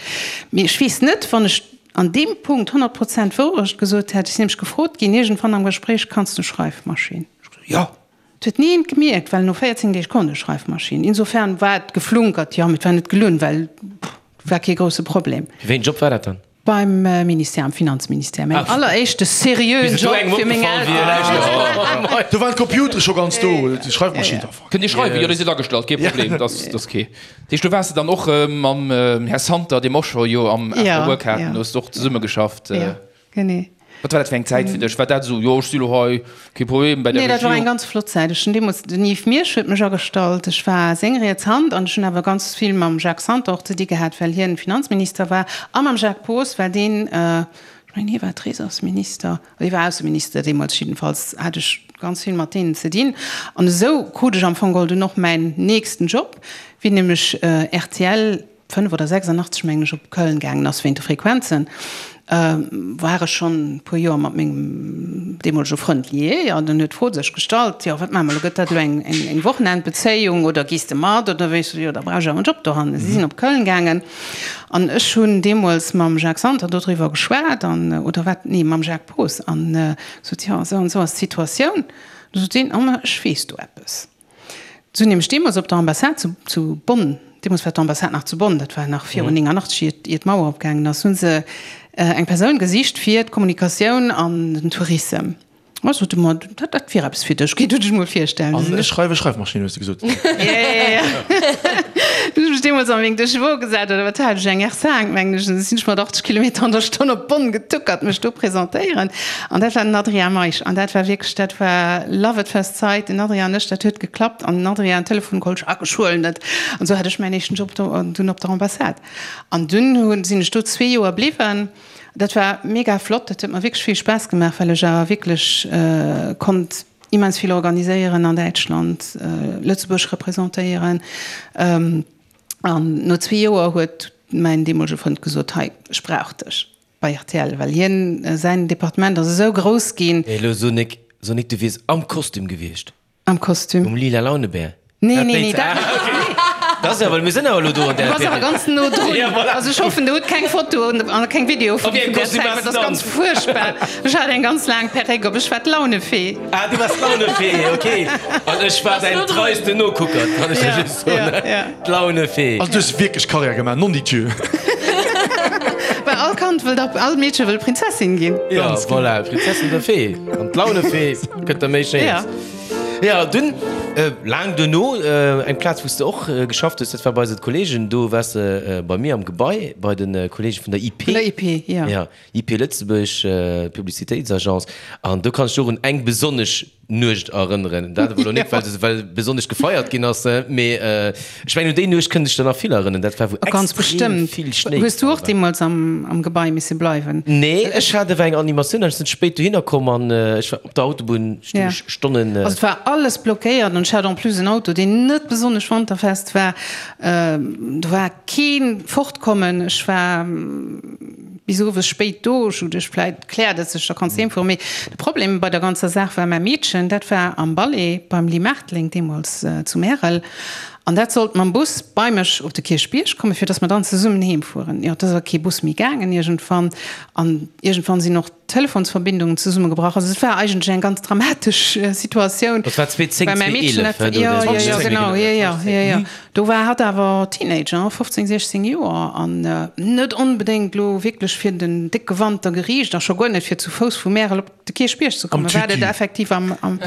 Mee ech weess net, wann ech an deem Punkt 100 Prozent d'Wourecht gesot hätt. Ech sinn nämlech gefrot ginn iergendwann am Gespréich, Kanns du Schreifmaschinn? Ech gesot, Jo. Et huet ni eent gemierkt, well no 14 Deeg konnt ech Schreifmaschinn. Insofern war et geflunkert, jo, mee et war net gelunn, well war kee grousse Problem. Fir wéi en Job war dat dann? Beim Ministère, am Finanzministère. Mäin alleréischte seriöen Job fir meng Elteren. Do waren d'Computere scho ganz do, d'Schreifmaschinn. Kënnt Dir schreiwen? Jo, dir sidd agestallt, kee Problem, dat ass kee. Dat heescht, do waars de dann och mam Här Santer, dee mer och scho jo am After Work haten, hues de och zesummegeschafft. Jo, genee. Wat war dat fir eng Zäit fir dech? War dat esou, jo ech si lo hei, kee Problem bei der Regierung? Nee, dat war eng ganz flott Zäit. Ech hunn deemools, den Yves Miersch huet mech agestallt, ech war seng riets Hand an ech hunn awer ganz vill mam Jacques Santer och ze di gehat, well hien Finanzminister war a mam Jacques Poos, well deen, ech mengen hie war Trésorsminister, oder hie war Ausseminister deemools, jiddefalls hat ech ganz vill mat deenen ze dinn. An esou krut ech am Fong geholl dunn och mäin nächsten Job, wéi nämlech rtl 5 oder 86 mengen ech op Köln gaangen ass wéint de Frequenzen. War ech schonn e puer Joer mat mengem deemolege Frënd lié an dann huet d'Fro sech gestallt, jo wat maache mer elo, gëtt dat elo eng eng Wochenendbezéiung oder gees de mat oder wéi? Ech sot, jo da brauch ech awer en Job dohannen. Si sinn op Köln gaangen an ech hunn deemools mam Jacques Santer dodriwwer geschwat an, oder wat, nee mam Jacques Poos an gesot, jo esou an esou ass d'Situatioun. Du sot deen, oh ma ech weess do eppes. Se hunn nämlech deemools op der Ambassade zu, zu Bonn, deemools war d'Ambassade nach zu Bonn, dat war nach virun 89, iert, iert d'Mauer opgaangen ass, hu se eng Persoun gesicht fir d'Kommunikatioun an den Tourissem. A sot e mer, dat, dat wier eppes fir dech, géi du dech mol virstellen. An ech schreiwe Schreifmaschinn, hues de gesot. Ja, ja, ja. Du hunn ech mech deemools a meng Deux-Chevaux gesat, oder wat hat ech, eng R5, mengen ech, an da sinn ech mat 80 Kilometer an der Stonn op Bonn getuckert, mech do presentéieren. An dat war den Adrien Meisch. An dat war wierklech, dat war love at first sight. Den Adrien an ech, dat huet geklappt. An den Adrien Telefon geholl, Jacques, ech huelen et. An esou hat ech mäin éischten Job do dunn op der Ambassade. An dunn hunn, sinn ech do zwee Joer bliwwen. Dat war mega flott, dat huet mer wierklech vill Spaass gemaach, well ech awer wierklech konnt immens vill organiséieren an Däitschland, Lëtzebuerg representéieren. An no zwee Joer huet mäin deemolege Frënd gesot, Hei, ech brauch dech. Bei rtl, well hien, säin Departement ass esou grouss ginn. Mee elo so nik, so nik, du wiers am Kostüm gewiescht. Am Kostüm? Um lila Launebär. Nee, nee, nee, dat net. Okay. Dat ass jo, well mir sinn awer elo do an där Du bass awer ganz no drun. Ja, voilà. Also ech hoffen, der hutt keng Foto an keng Video vun Op wéi engem där Kostüm Zäit, waars well de dat ass dann? ganz fuerchtbar. Ech hat eng ganz laang Perréck op, ech war d'Launefee. Ah, du waars d'Launefee, okay. An ech war däin treisten Nokucker, kann ech der just soen. Ja, ja. D'Launefee. Also du hues wierklech Karriär gemaach, nondidjö. Well all Kand wëllt ab, all Meedche wëll Prinzessin ginn. Ja, voilà, Prinzessin oder Fee. An d'Launefee gëtt der méi Schéines. Ja, dunn, laang duerno, eng Plaz, wou s de och geschafft hues, dat war bei eise Kollegen, do waars de bei mir am Gebai, bei de Kollege vun der IP. Vun der IP, ja. Ja, IP Lëtzebuerg, Publicitéitsagence. An do kann ech dech och un eng besonnesch Nuecht erënneren. Dat awer elo net, well se well besonnesch gefeiert ginn ass, mee ech mengen un déi Nuecht kënnen sech der nach vill erënneren. Dat war wou Ganz extrem bestëmmt. vill Schnéi Hues du gefall och war. deemools am am Gebai misse bleiwen? Nee, ech hat awer eng Animatioun an ech sinn spéit dohinner komm an ech war op der Autobunn stoung Ja. ech Stonnen. Also et war alles blockéiert an ech hat en plus en Auto, deen net besonnesch wanterfest war. Do war kee Fortkommen. Ech war bis owes spéit do. Ech hu geduecht, vläit kläert et sech, da kanns de heem fueren. Mee de Problem bei der ganzer Saach war mäi Meedchen, dat war am Ballet beim Ly Marteling deemools zu Märel an dat sollt mam Bus bei mech op de Kierchbierg kommen, fir datt mer dann zesummen heem fueren. Jo, et ass awer kee Bus méi gaangen iergendwann an iergendwann sinn och d'Telefonsverbindungen zesummegebrach. Also et war eigentlech eng ganz dramatesch Situatioun. Dat war 2010, Well mäi Meedchen 2011, dat, do jo, dee jo, jo, 2010, genau, jo, jo, jo, jo. Do war hatt awer Teenager, 15, 16 Joer, an net onbedéngt elo wierklech fir den décke Wanter geriicht a scho guer net fir zu Fouss vu Märel op de Kierchbierg ze kommen. War dat effektiv am, am,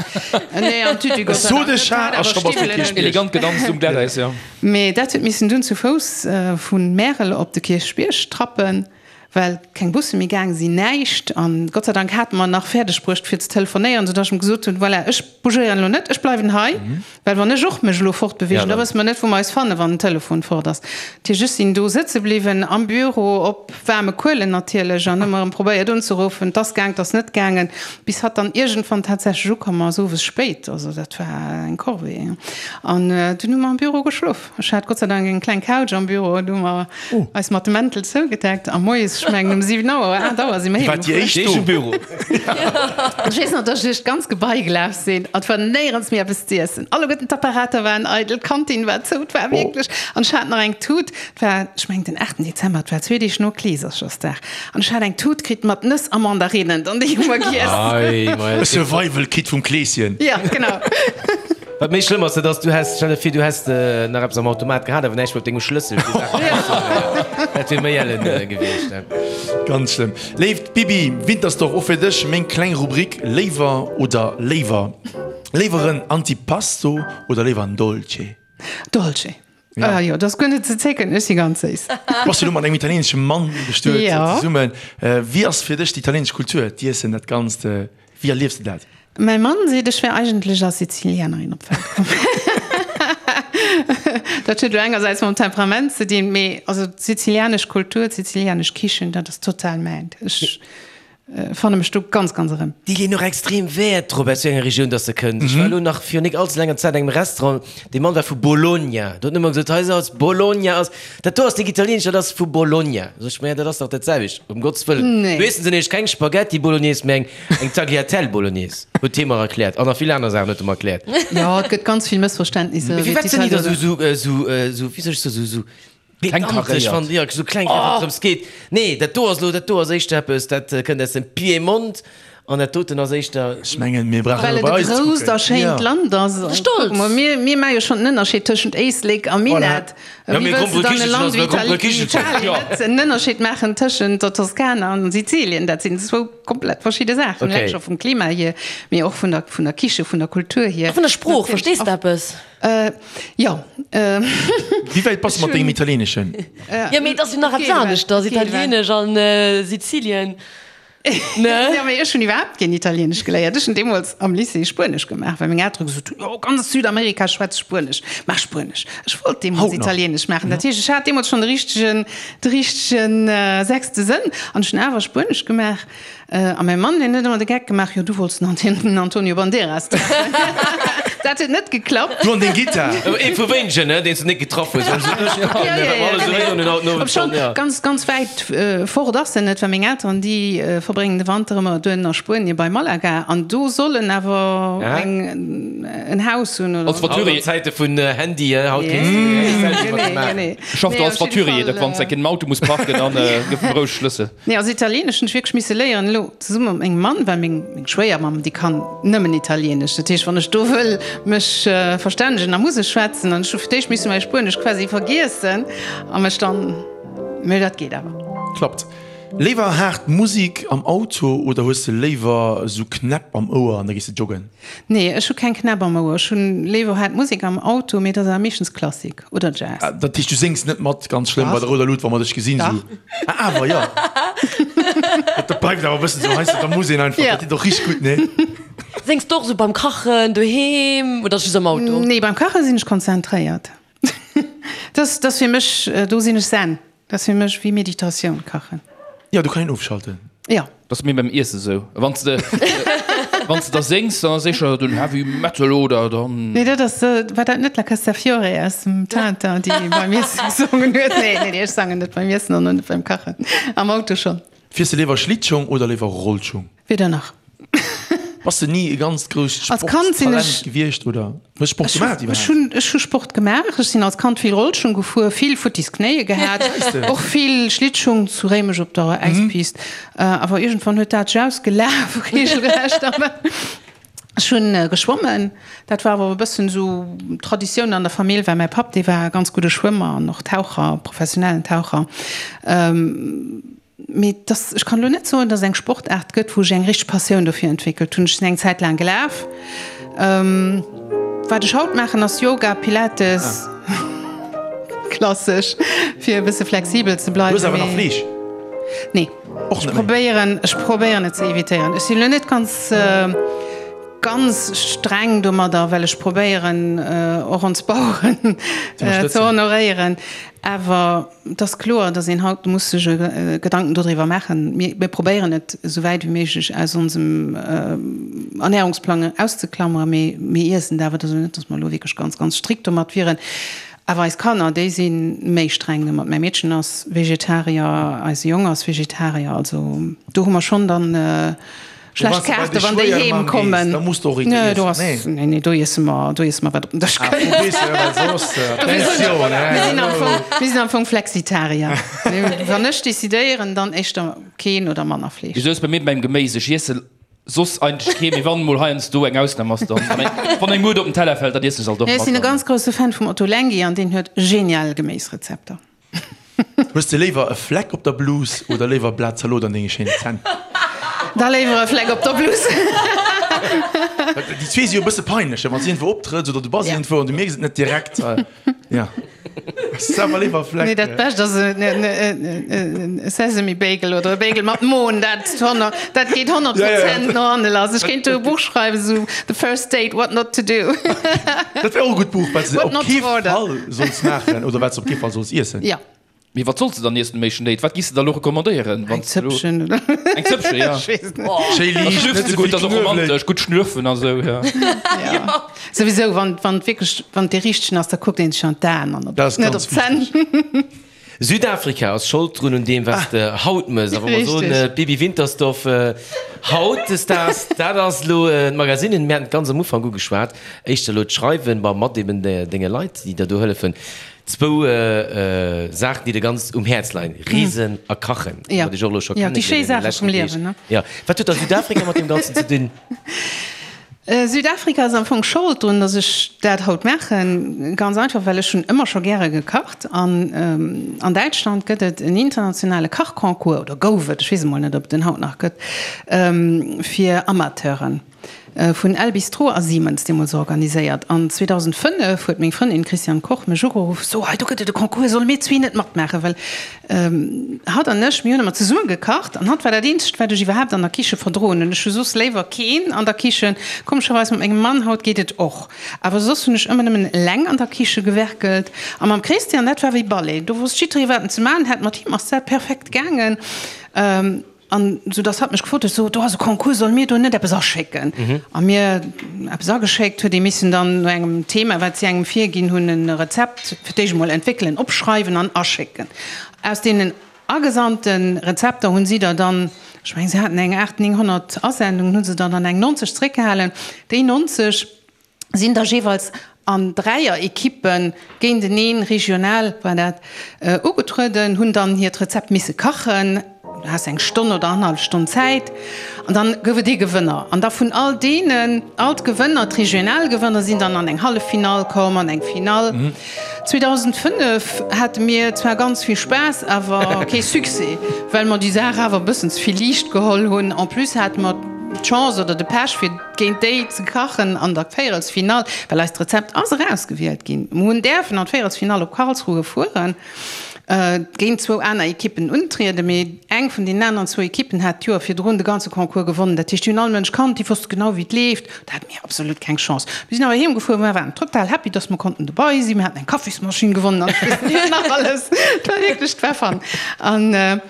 nee, am Tütü, Gott sei Dank net, hat awer Stiwwelen un. Elegant gedanzt um Glatteis, jo. Mee dat huet missen dunn zu Fouss vu Märel op de Kierchbierg trappen, well keng Busse méi gaang sinn, näischt. An Gott sei Dank hate mer nach fäerdeg bruecht fir ze telefonéieren, soudass ech em gesot hunn, voilà, ech bougéieren elo net, ech bleiwen hei, well wann ech och mech elo fortbeweegen, da wësse mer net, wou mer eis fannen, wann den Telefon fort ass. Dat heescht, ech sinn do sëtze bliwwen am Büro, op waarme Kuelen natierlech, an hu mer erëm probéiert unzeruffen. 't ass gaang, 't ass net gaangen, bis hatt dann iergendwann tatsächlech ukomm ass, owes spéit. Also dat war eng Corvée. An dunn hu mer am Büro geschlof. Ech hat Gott sei Dank eng kleng Couch am Büro, do hu mer eis mat de Mäntel zougedeckt a moies, ech mengen um 7 Auer oder 8 Auer si mer Dir waart déi éischt do? Büro. Ech weess nach, dass ech duerch d'ganz Gebai gelaf sinn an et war néierens méi eppes z'iessen. Alleguerten d'Apparater waren eidel, d'Kantin war zou, et war wierklech, an ech hat nach eng Tut, et war, ech mengen den 8 Dezember, et war zwee Deeg no Kleeserchersdag, an ech hat eng Tut kritt mat Nëss a Mandarinen an déi hu mer giess. E Survival Kit vum Kleeschen. Ja, genau. Wat méi schlëmm ass, dat ass, du häss, stell der vir, du häss nach eppes am Automat gehat, awer näischt méi op dengem Schlëssel fir Saachen rauszehuelen. Dat wier méi ellen gewiescht. Ganz schlëmm. Léift Bibi Wintersdorf, och fir dech meng kleng Rubrik Léiwer oder léiwer. Léiwer en Antipasto oder léiwer en Dolce? Dolce. Ah jo, dat ass guer net ze zécken, ech si ganz séiss. Du bass jo elo mat engem italieenesche Mann bestuet zesummen. Wéi ass fir dech déi italieenesch Kultur, d'Iessen, dat Ganzt? Wéi erliefs de dat? Mäi Mann seet, ech wär eigentlech als Sizilianerin op d'Welt komm. Dat huet elo engersäits mam Temperament ze dinn, mee also d'sizilianesch Kultur, d'sizilianesch Kichen, dat ass total mäint. Ech. Fanne mech do ganz ganz erëm. Déi leeën och extrem Wäert drop, aus wéi enger Regioun dass se kënnt. Ech war elo nach virun nik allze laanger Zäit an engem Restaurant, dee Mann war vu Bologna. Do huet en ëmmer gesot, hei ass Bologna ass, dat do ass nik italienesch, dat ass vu Bologna. Sot ech, ma dat ass dach dat selwecht, ëm Gottes Wëllen. Do iessen se nämlech keng Spaghetti Bolognese, mä eng, eng Tagliatelle Bolognese, huet hie mer erkläert. An nach vill aner Saachen huet e mer erkläert. Jo, et gëtt ganz vill Mëssverständnisser. Mee firwat sinn déi da sou, sou, sou, wéi soll ech soen, sou, sou Pedantesch fannt Dir, esou kleng wéi et drëms geet. Nee, dat do ass elo, dat do ass éischter eppes, dat kënnt aus dem Piemont an dat doten ass éischter. Ech mengen, mir brauchen elo bei eis ze kucken. Well et e grousst a schéint Land ass. Stolz! Kuck mol, mir, mir maache jo schonn den Ënnerscheed tëschent Éislek a Minett. Voilà. Wéi wëlls de dann e Land wéi Italien net en Ënnerscheed maachen tëschent der Toskana an Sizilien? Dat sinn zwou komplett verschidde Saachen, eleng scho vum Klima hier, mee och vun der, vun der Kiche, vun der Kultur hier. A vun der Sprooch, verstees de eppes? Jo. Wéi wäit bass de mat dengem Italieeneschen? Jo, mee et ass jo nach eppes aneschters, Italieenesch an Sizilien, ne? Jo, mee ech hunn iwwerhaapt keen Italieenesch geléiert. Ech hunn deemools am Lycée Spuenesch gemaach, well meng Eltere gesot hunn, jo, ganz Südamerika schwätzt Spuenesch, maach Spuenesch. Ech wollt deemools Italieenesch maachen. Dat heescht, ech hat deemools schonn de richtegen, de richtegen sechste Sënn an ech hunn awer Spuenesch gemaach. A mäi Mann, deen huet ëmmer de Geck gemaach, jo du wollts den Antonio Banderas treffen. Dat huet net geklappt. Du an deng Gittar. Ee vu wéinegen, ne, deen s de net getraff hues. Obschonn, ganz, ganz wäit fort ass en net, well meng Elteren, déi verbréngen de Wanter ëmmer duerno a Spuenie bei Malaga an do soll en awer eng, en Haus hunn oder. Als Voiturier. Haut an Zäite vun Handy, haut kéints de méi eng Selfie mat em maachen. Schafft als Voiturier, dat wann s de enk en Auto muss parken, dann gëff em roueg Schlëssel. Nee, also Italieenesch hunn ech wierklech misse léieren, elo zesumme mat mengem Mann, well meng meng Schwéiermamm, déi kann nëmmen Italieenesch. Dat heescht, wann ech do wëll mech verstännegen, da muss ech schwätzen. An ech hu fir d'éischt misse mäi Spuenesch quasi vergiessen a mech dann, mee dat geet awer. Klappt. Léiwer haart Musik am Auto oder hues de léiwer esou Knäpp am Ouer an da gees de joggen? Nee, ech hu keng Knäpp am Ouer. Ech hunn léiwer haart Musik am Auto, mee dat ass awer meeschtens Klassik. Oder Jazz. Dat heescht du séngs net mat ganz schlëmm bei der rouder Lut wa mer dech gesinn sou? Ah awer jo. Dat bleift awer e bëssen sou heiansdo, da muss een einfach, dat deet och richteg gutt, nee? Séngs de och sou beim Kachen doheem oder just am Auto? Nee, beim Kache sinn ech konzentréiert. Dat ass fir mech, do sinn ech zen. Dat ass fir mech wéi Meditatioun, kachen. Jo, do kann een ofschalten. Jo. Dat ass mir beim Iesse sou. Wann s de, wann s de da séngs, dann ass éischter den Heavy Metal oder dann. Nee, dat ass, war dat net La Castafiore aus dem Tintin, déi beim Iessen gesongen huet? Nee, nee, nee, ech sangen net beim Iessen an och net beim Kachen. Am Auto schonn. Fiers de léiwer Schlittschong oder léiwer Rollschong? Weder nach. Bass de ni e ganzt grousst Als Kand sinn Sportstalent ech. gewiescht oder hues Sport Ech gemaach hu, ech iwwerhaapt? hunn, ech hu Sport gemaach. Ech sinn als Kand vill Rollschung gefuer, vill futtis Knéie gehat, och vill Schlittschung zu Réimech op der Äispist. Awer iergendwann huet dat sech ausgelaf regelrecht. Ech hunn geschwommen. Dat war awer e bëssen esou Traditioun an der Famill, well mäi Papp, dee war e ganz gudde Schwëmmer an och Taucher, professionellen Taucher. Mee dass, ech kann elo net soen, dass et eng Sportaart gëtt, wou ech eng richteg Passioun dofir entwéckelt hunn. Ech sinn eng Zäit laang gelaf. Wat ech haut maachen, ass Yoga, Pilates, klassesch, fir e bësse flexibel ze bleiwen. Du hues awer nach Fleesch? Nee. Och Ech net méi? probéieren, ech probéieren et ze evitéieren. Ech sinn elo net ganz, ganz streng domadder, well ech probéieren, och ons Baueren ze honoréieren. Awer et ass kloer, datt een haut muss sech Gedanken dodriwwer maachen. Mir probéieren et esou wäit wéi méiglech aus onsem Ernährungsplang auszeklammeren, mee mir iessen et awer. Et ass elo net, datt mer elo wierklech ganz, ganz strikt domat wieren. Awer eis Kanner, déi si méi streng domat. Mäi Meedchen ass Vegetarier, eise Jong ass Vegetarier. Also do hu mer schonn dann Schlecht Kaarte wann déi heem kommen. Da muss du och eent iessen. Nee, nee, do iesse mer, do iesse mer wat op den Dësch kënnt. Mir sinn am Fong Flexitarier. Wann ech decidéieren, dann éischter keen oder manner Fleesch. Esou ass bei mir beim Geméis. Ech iesse soss eigentlech kee, mee wann emol heiansdo eng Ausnam ass, dann, wann eng Muert op den Teller fält, dann iessen ech se alt och Ech mat. sinn e ganz grousse Fan vum Ottolenghi an deen huet genial Geméisrezepter. Hues de léiwer e Fleck op der Blus oder léiwer e Blat Zalot an denge schéinen Zänn? Da léiwer e Fleck op der Blus. Déi zwee si jo e bësse peinlech, wann s de iergendwou optrëtts oder du bass iergendwou an du mierks et net direkt. Jo, hues de awer léiwer e Fleck. Nee, dat Bescht ass e Sesame Bagel oder e Bagel mat Mohn, dat dat geet 100 Prozent no hanne lass. Ech kéint do e Buch schreiwen, esou The First Date, What Not To Do. Dat wär och e gutt Buch, wat s de What op not kee to order. Fall solls maachen oder wat s de op kee Fall solls iessen. Jo. Mee wat solls de dann iessen um éischten Date? Wat giss de da lo recommandéieren? Eng Zëppchen oder? Eng Zëppchen, ja. Ech weess net. Schéi Da liicht, schlürfs net de ze gutt, vill dat ass och Knuewelek. romantesch, gutt schlürfen a sou, ja. Ja. Souwisou, wann, wann wierklech, wann dee richtegen ass, da kuckt een sech an d'Aen an op, Dat ass net ganz op d'Zänn. wichteg. Südafrika ass Schold drun un deem, wat s de haut mëss. A wa mer soen, Richtig. Bibi Wintersdorf hautdesdaags, dat ass elo d'Magasinen. Mir haten et ganz am Ufank ugeschwat, éischter elo d'Schreiwen, ma mat eben denge Leit, déi der do hëllefen. Zwou Saachen, déi der ganz um Häerz leien, Reesen a Kachen. Ja, Wat ech och elo scho ja, déi schéi kennengeléiert an de Saache leschten vum Deeg. Liewen, ne? Ja. Wat huet da Südafrika mat deem Ganzen ze dinn? Südafrika ass am Fong Schold drun, dass ech dat haut maachen. Ganz einfach, well ech hunn ëmmer scho gäre gekacht. An an Däitschland gëtt et en internationale Kachconcours, oder gouf et, ech weess emol net, ob et en haut nach gëtt, fir Amateuren, vun El Bistrot a Siemens deemools organiséiert. An 2005 huet meng Frëndin Christiane Koch mech ugeruff, So, hei do gëtt et e Concours, solle mir zwee net matmaachen? Well Hatt an ech, mir hunn ëmmer zesumme gekacht an hatt war dat eenzegt, wat ech iwwerhaapt an der Kiche verdroen hunn. Ech hu soss léiwer keen an der Kichen. Komescherweis mat mengem Mann haut geet et och, awer soss hunn ech ëmmer nëmmen eleng an der Kiche gewerkelt. A mam Christian, dat war wéi Ballet, do wosst jidderee wat en ze maachen hat. Mat him ass dat perfekt gaangen. An sou dass hatt mech gefrot huet, so do ass e Concours, solle mir do net eppes aschécken? A mir eppes ageschéckt, huet ee missen dann no engem Thema, wat si engem virginn hunn, e Rezept fir d'éischt emol entwéckelen, opschreiwen an aschécken. Aus deenen agesandte Rezepter hunn si der dann, ech mengen si haten eng 800, 900 Asendungen, hu se der dann eng 90 zréckgehalen. Déi 90 sinn da jeeweils an Dräier-Ekippe géinteneen, regional war dat, ugetrueden, hunn dann hiert Rezept misse kachen. Du has eng Stonn oder annerhallef Stonn Zäit an dann gouf et ee Gewënner. An da vun all deenen, all d'Gewënner, d'regional Gewënner sinn dann an eng Halleffinall komm, an eng Finall. 2005 hate mir zwar ganz vill Spaass, awer kee Succès, well mer déi Saach awer e bëssen ze vill liicht geholl hunn. En plus hate mer d'Chance oder de Pech fir géint déi ze kachen an der Véierelsfinall, well eist Rezept ass erausgewielt ginn. Mer hunn däerfen an d'Véierelsfinall op Karlsruhe fueren, géint zwou aner Ekippen untrieden, mee eng vun deenen aneren zwou Ekippen hat d'Joer virdrun de ganze Concours gewonnen. Dat heescht, déi hunn all Mënsch kannt, déi wosste genau, wéi et leeft. Do hate mir absolut keng Chance. Mir sinn awer heem gefuer, mer waren total happy, dass mer konnten dobei sinn. Mir haten eng Kaffismaschinn gewonnen an ech weess net wat nach alles. Et war wierklech, et war fun. An.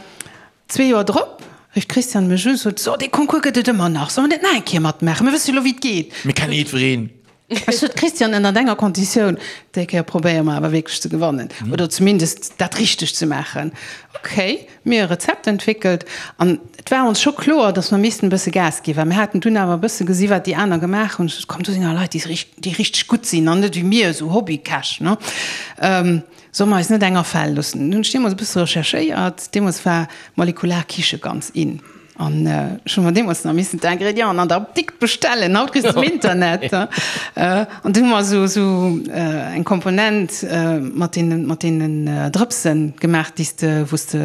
Zwee Joer drop rifft d'Christiane mech u, sot, So, dee Concours gëtt et ëmmer nach, solle mer net nach eng Kéier matmaachen? Mir wësse jo elo, wéi et geet. Mir kenne jiddwereen. Ech sot, Christiane, ënnert enger Konditioun, déi Kéier probéiere mer awer wierklech ze gewannen oder zumindest dat richteg ze maachen. Ok, mir e Rezept entwéckelt an et war ons scho kloer, datt mer missten e bësse Gas ginn, well mir haten dunn awer e bësse gesi wat déi aner gemaach hunn. Ech sot, Komm, do sinn awer Leit, déi richteg gutt sinn an net wéi mir, esou Hobbykäch, ne? Solle mer eis net eng afale loossen? Hunn ech deemools e bësse recherchéiert. Deemools war molekular Kiche ganz in. An ech hu mer deemools nach missen d'Ingrédienten an der Apdikt bestellen. Haut kriss de se um Internet. An du hu mer esou esou eng Komponent mat deenen, mat deenen Drëpse gemaach, déi s de, wou s de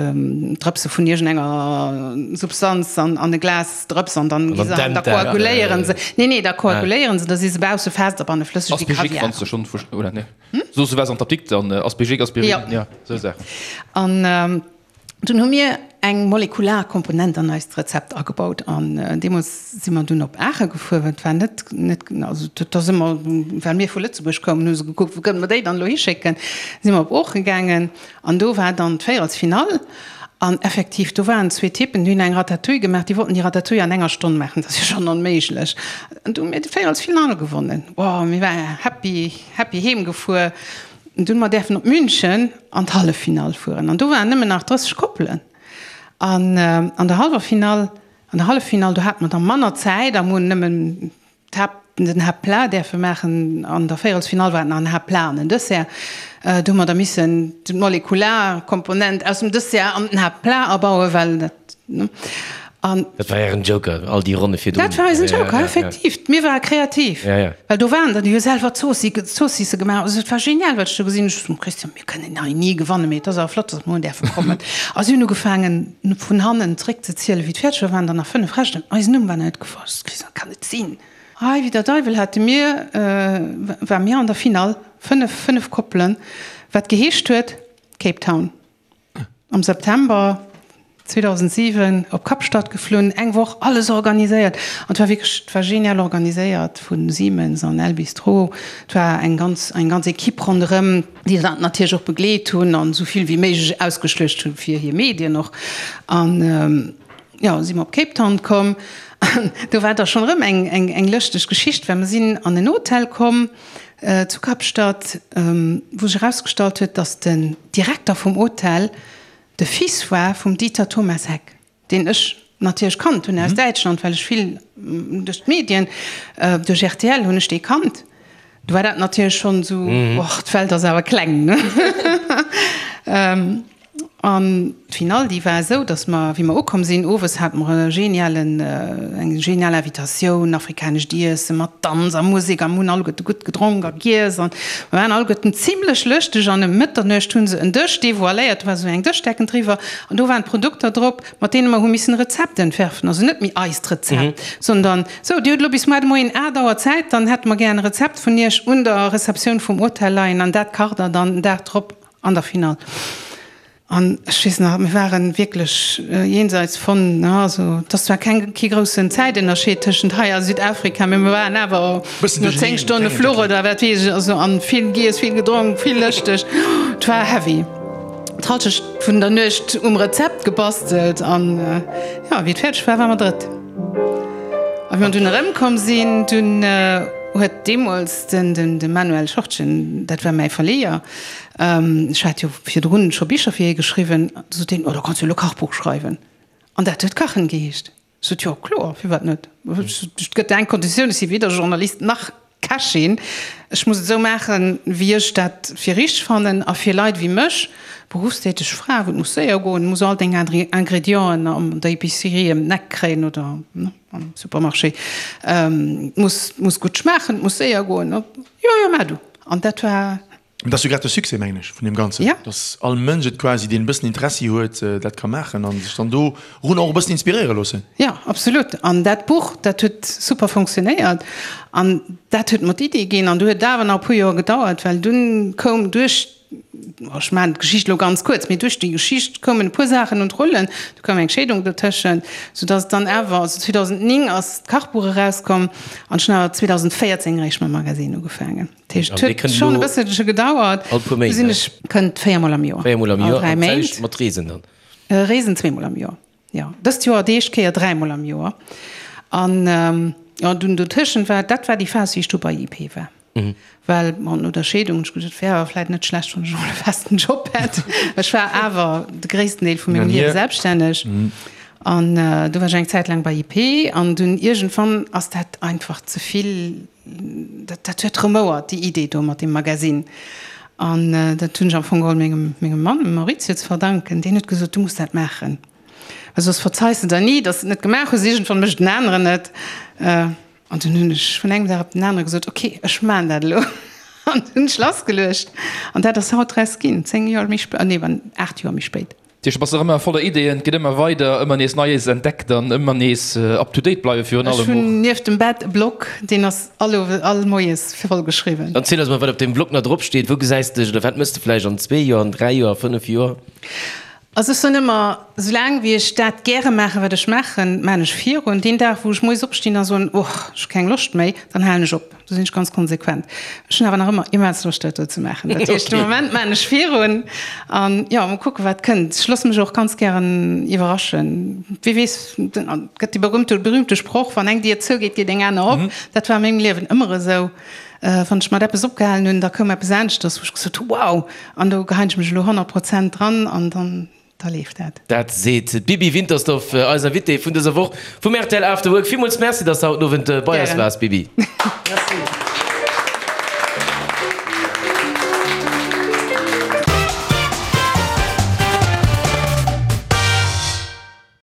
Drëpse vun iergendenger Substanz an an e Glas drëps an dann gi se an da koaguléieren se. Nee, nee, da koaguléieren se, da si se bausse fest a banne flësseg wéi Kaviar. Aspégique, wann s de schonn vu, oder nee? Soos du waars an d'Apdikt an Aspegic, Aspirin, Ja. ja, sou Saachen. An dunn hu mir eng molekular Komponent an eist Rezept agebaut. An deemools si mer dunn op Aache gefuer, well et war net, net, also dat ass ëmmer, well mir vu Lëtzebuerg koumen, hu se gekuckt, wou kënne mer déi dann elo hischécken. Si mer op Oochen gaangen an do war dann d'Véierelsfinall. An effektiv, do waren zwee Typen, déi hunn eng Ratatouille gemaach, déi wollten déi Ratatouille an enger Stonn maachen, dat ass jo schonn onméiglech. An du hu mir d'Véierelsfinall gewonnen. Wow, mir ware happy. Happy heem gefuer. Dunn mer däerfen op München an d'Halleffinall fueren an do waren nëmmen nach 30 Koppelen an an der hallwer Finall, an der Halleffinall do hate mer da manner Zäit a mer hunn nëmmen d'Haapt, den Haaptplat däerfe maachen. An der Véierelsfinall war et nach en Haaptplat an en Dessert. Do hu mer da missen d'molekular Komponent aus dem Dessert an den Haaptplat abauen, well dat, ne. An dat war ären Joker, all déi Ronne virdrun. Dat war eisen Joker, effektiv. Mir ware kreativ. Ja, ja. Well do waren der, déi hu selwer Zoossisse gemaach. Also et war genial, wat ech do gesinn hunn. Ech sot, Christian, mir kënnen hei ni gewannen, mee et ass awer flott, datt mer hunn däerfe kommen. A si hunn ugefaangen, vun hannen zréckzezielen, wéi d'Fäerdeger waren, dann nach 5 Rechten. Eisen Numm war net gefall. Ech sot, Christian, dat kann net sinn. Hei, wéi der Deiwel hate mir, ware mir an der Finall, 5, 5 Koppelen, wat geheescht huet, Cape Town. Am September. 2007 op Kapstadt geflunn, eng Woch alles organiséiert an et war wierklech, et war genial organiséiert vu Siemens an El Bistro. Et war eng ganz, eng ganz Equipe ronderëm, déi dat natierlech och begleet hunn an esou vill wéi méiglech ausgeschluecht hunn fir hir Medien och. An jo, si mer op Cape Town komm an do war da schonn erëm eng, eng, eng lëschteg Geschicht, well mer sinn an en Hotel komm zu Kapstadt, wou sech erausgestallt huet, datt den Direkter vum Hotel De Fils war vum Dieter Thomas Heck, deen ech natierlech kannt hunn aus Däitschland, well ech vill duerch d'Medien, duerch rtl hunn ech dee kannt. Du war dat natierlech schonn esou, och d'Welt ass awer kleng, ne? An d'Finall, déi war esou, datt mer, wéi mer ukomm sinn, owes hate mer e genialen, eng genial Invitatioun, afrikanescht Iesse mat Danz a Musek a mer hunn alleguerte gutt gedronk a giess an mer waren alleguerten zimlech lëschteg an ëm Mëtternuecht hu se en Dësch devoiléiert, do war esou eng Dëschdecken driwwer an do waren d'Produkter drop, mat deene mer hu missen e Rezept entwerfen, also net méi eist Rezept, sondern, sou, Dir hutt elo bis muar de Moien 8 Auer Zäit, dann hätte mer gären e Rezept vun Iech un der Receptioun vum Hotel leien an dat kacht Der dann den Dag drop an der Finall. An ech weess nach, mir ware wierklech jenseits von, also et ass zwar keng, kee groussen Zäitënnerscheed tëschent hei a Südafrika, mee mir waren awer no 10 Stonne Fluch oder wat weess ech, also an vill giess, vill gedronk, vill lëschteg, et war heavy. D'Halschecht vun der Nuecht um Rezept gebastelt an jo, wéi et fäerdeg war, ware mer drëtt. A wéi mer dunn erëmkomm sinn, dunn huet deemools den, de Manuel Schortgen, dat war mäi Verleeër, Ech hat jo virdrun scho Bicher fir hie geschriwwen. Du sot hien, Oh, da kanns du jo elo Kachbuch schreiwen. An dat huet Kachen geheescht. Ech sot, Jo, kloer, firwat net? Et gëtt eng Konditioun, ech si weder Journalist nach Kächin. Ech muss et esou maachen, wéi ech dat fir richteg fannen. A fir Leit wéi mech, beruffstäteg Fra, wou et muss séier goen, muss all deng Ingredienten an der Epicerie ëm den Eck kréien oder am Supermarché, et muss, muss gutt schmaachen, et muss séier goen. Jo, jo, maach du. An dat war. Dat ass jo grad de Succès, mengen ech, vun deem Ganzen, Ja. dass all Mënsch et quasi, deen e bëssen Interessi huet, dat ka maachen a sech dann dorun och e bëssen inspiréiere loossen. Ja, absolut. An dat Buch, dat huet super funktionéiert an dat huet mer d'Idee ginn. An du huet et awer nach e puer Joer gedauert, well dunn koum duerch, ech maachen d'Geschicht elo ganz kuerz, mee duerch déi Geschicht koumen e puer Saachen un d'Rullen. Du koum eng Scheedung dotëschent, soudass et dann awer, also 2009 ass d'Kachbuch erauskomm an ech hunn awer 2014 eréischt mam Magasinn ugefaangen. Dat heescht, et huet schonn e bësselche gedauert. All puer Méint, Du sinn ech kënnt véiermol am Joer. Véiermol am Joer, an d'selwecht mat Reesen dann? Reesen zweemol am Joer, jo. Dëst Joer déi éischt Kéier dräimol am Joer. An jo, dunn dotëschent war, dat war déi Phas, wéi ech du bei IP war. Well, bon, no der Scheedung hunn ech gesot, et wär awer vläit net schlecht, wann ech emol e festen Job hätt. Ech war awer de gréissten Deel vu mengem Liewe selbststänneg. An du war ech eng Zäit laang bei IP an dunn iergendwann ass dat einfach ze vill. Dat, dat huet remouert, déi Idee do mat deem Magasinn. An dat hunn ech am Fong geholl mengem, mengem Mann, dem Maurizio, ze verdanken. Deen huet gesot, Du muss dat maachen, well soss verzeis de der ni, datt s de et net gemaach hues. Iergendwann mécht en aneren et. An dunn hunn ech vun engem Dag op den anere gesot, Ok, ech maachen dat elo. An hunn ech lassgeluecht. An dat ass haut draus ginn, 10 Joer méi spéit, nee, 8 Joer méi spéit. Dat heescht, du bass nach ëmmer voller Ideeën, et geet ëmmer weider, ëmmer nees Neies entdeckt an ëmmer nees up to date bleiwe virun allem och. Ech hunn nieft dem Bett e Blog, deen ass all Owes, all Moies voll geschriwwen. Dann ziel eis mol, wat op deem Blog nach drop steet. Wou gesäis de dech oder wat mëss de vläicht an zwee Joer, an dräi Joer, a fënnef Joer? Also ech soen ëmmer, soulaang wéi ech dat gäre maachen, wat ech maachen, maachen ech virun. Deen Dag, wou ech moies opstinn a soen, Och, ech hu keng Loscht méi, dann halen ech op. Do sinn ech ganz konsequent. Ech hunn awer nach ëmmer immens Loscht, dat do ze maachen. Dat heescht, de Moment maachen ech virun an jo, mol kucken, wat kënnt. Ech loosse mech och ganz gären iwwerraschen. Wie weess, et gëtt dee berühmte, berühmte Sproch, Wann eng Dier zougeet, geet eng aner op. Dat war a mengem Liewen ëmmer esou. Wann ech mat eppes opgehalen hunn, da koum eppes aneschters, wou ech gesot hu, Wow! An do geheien ech mech elo 100 Prozent dran an dann. Da leeft dat. Dat seet d'Bibi Wintersdorf, eis Invitée vun dëser Woch vum rtl After Work. Villmools Merci, dass de haut den Owend bei eis Gären. waars, Bibi. Merci.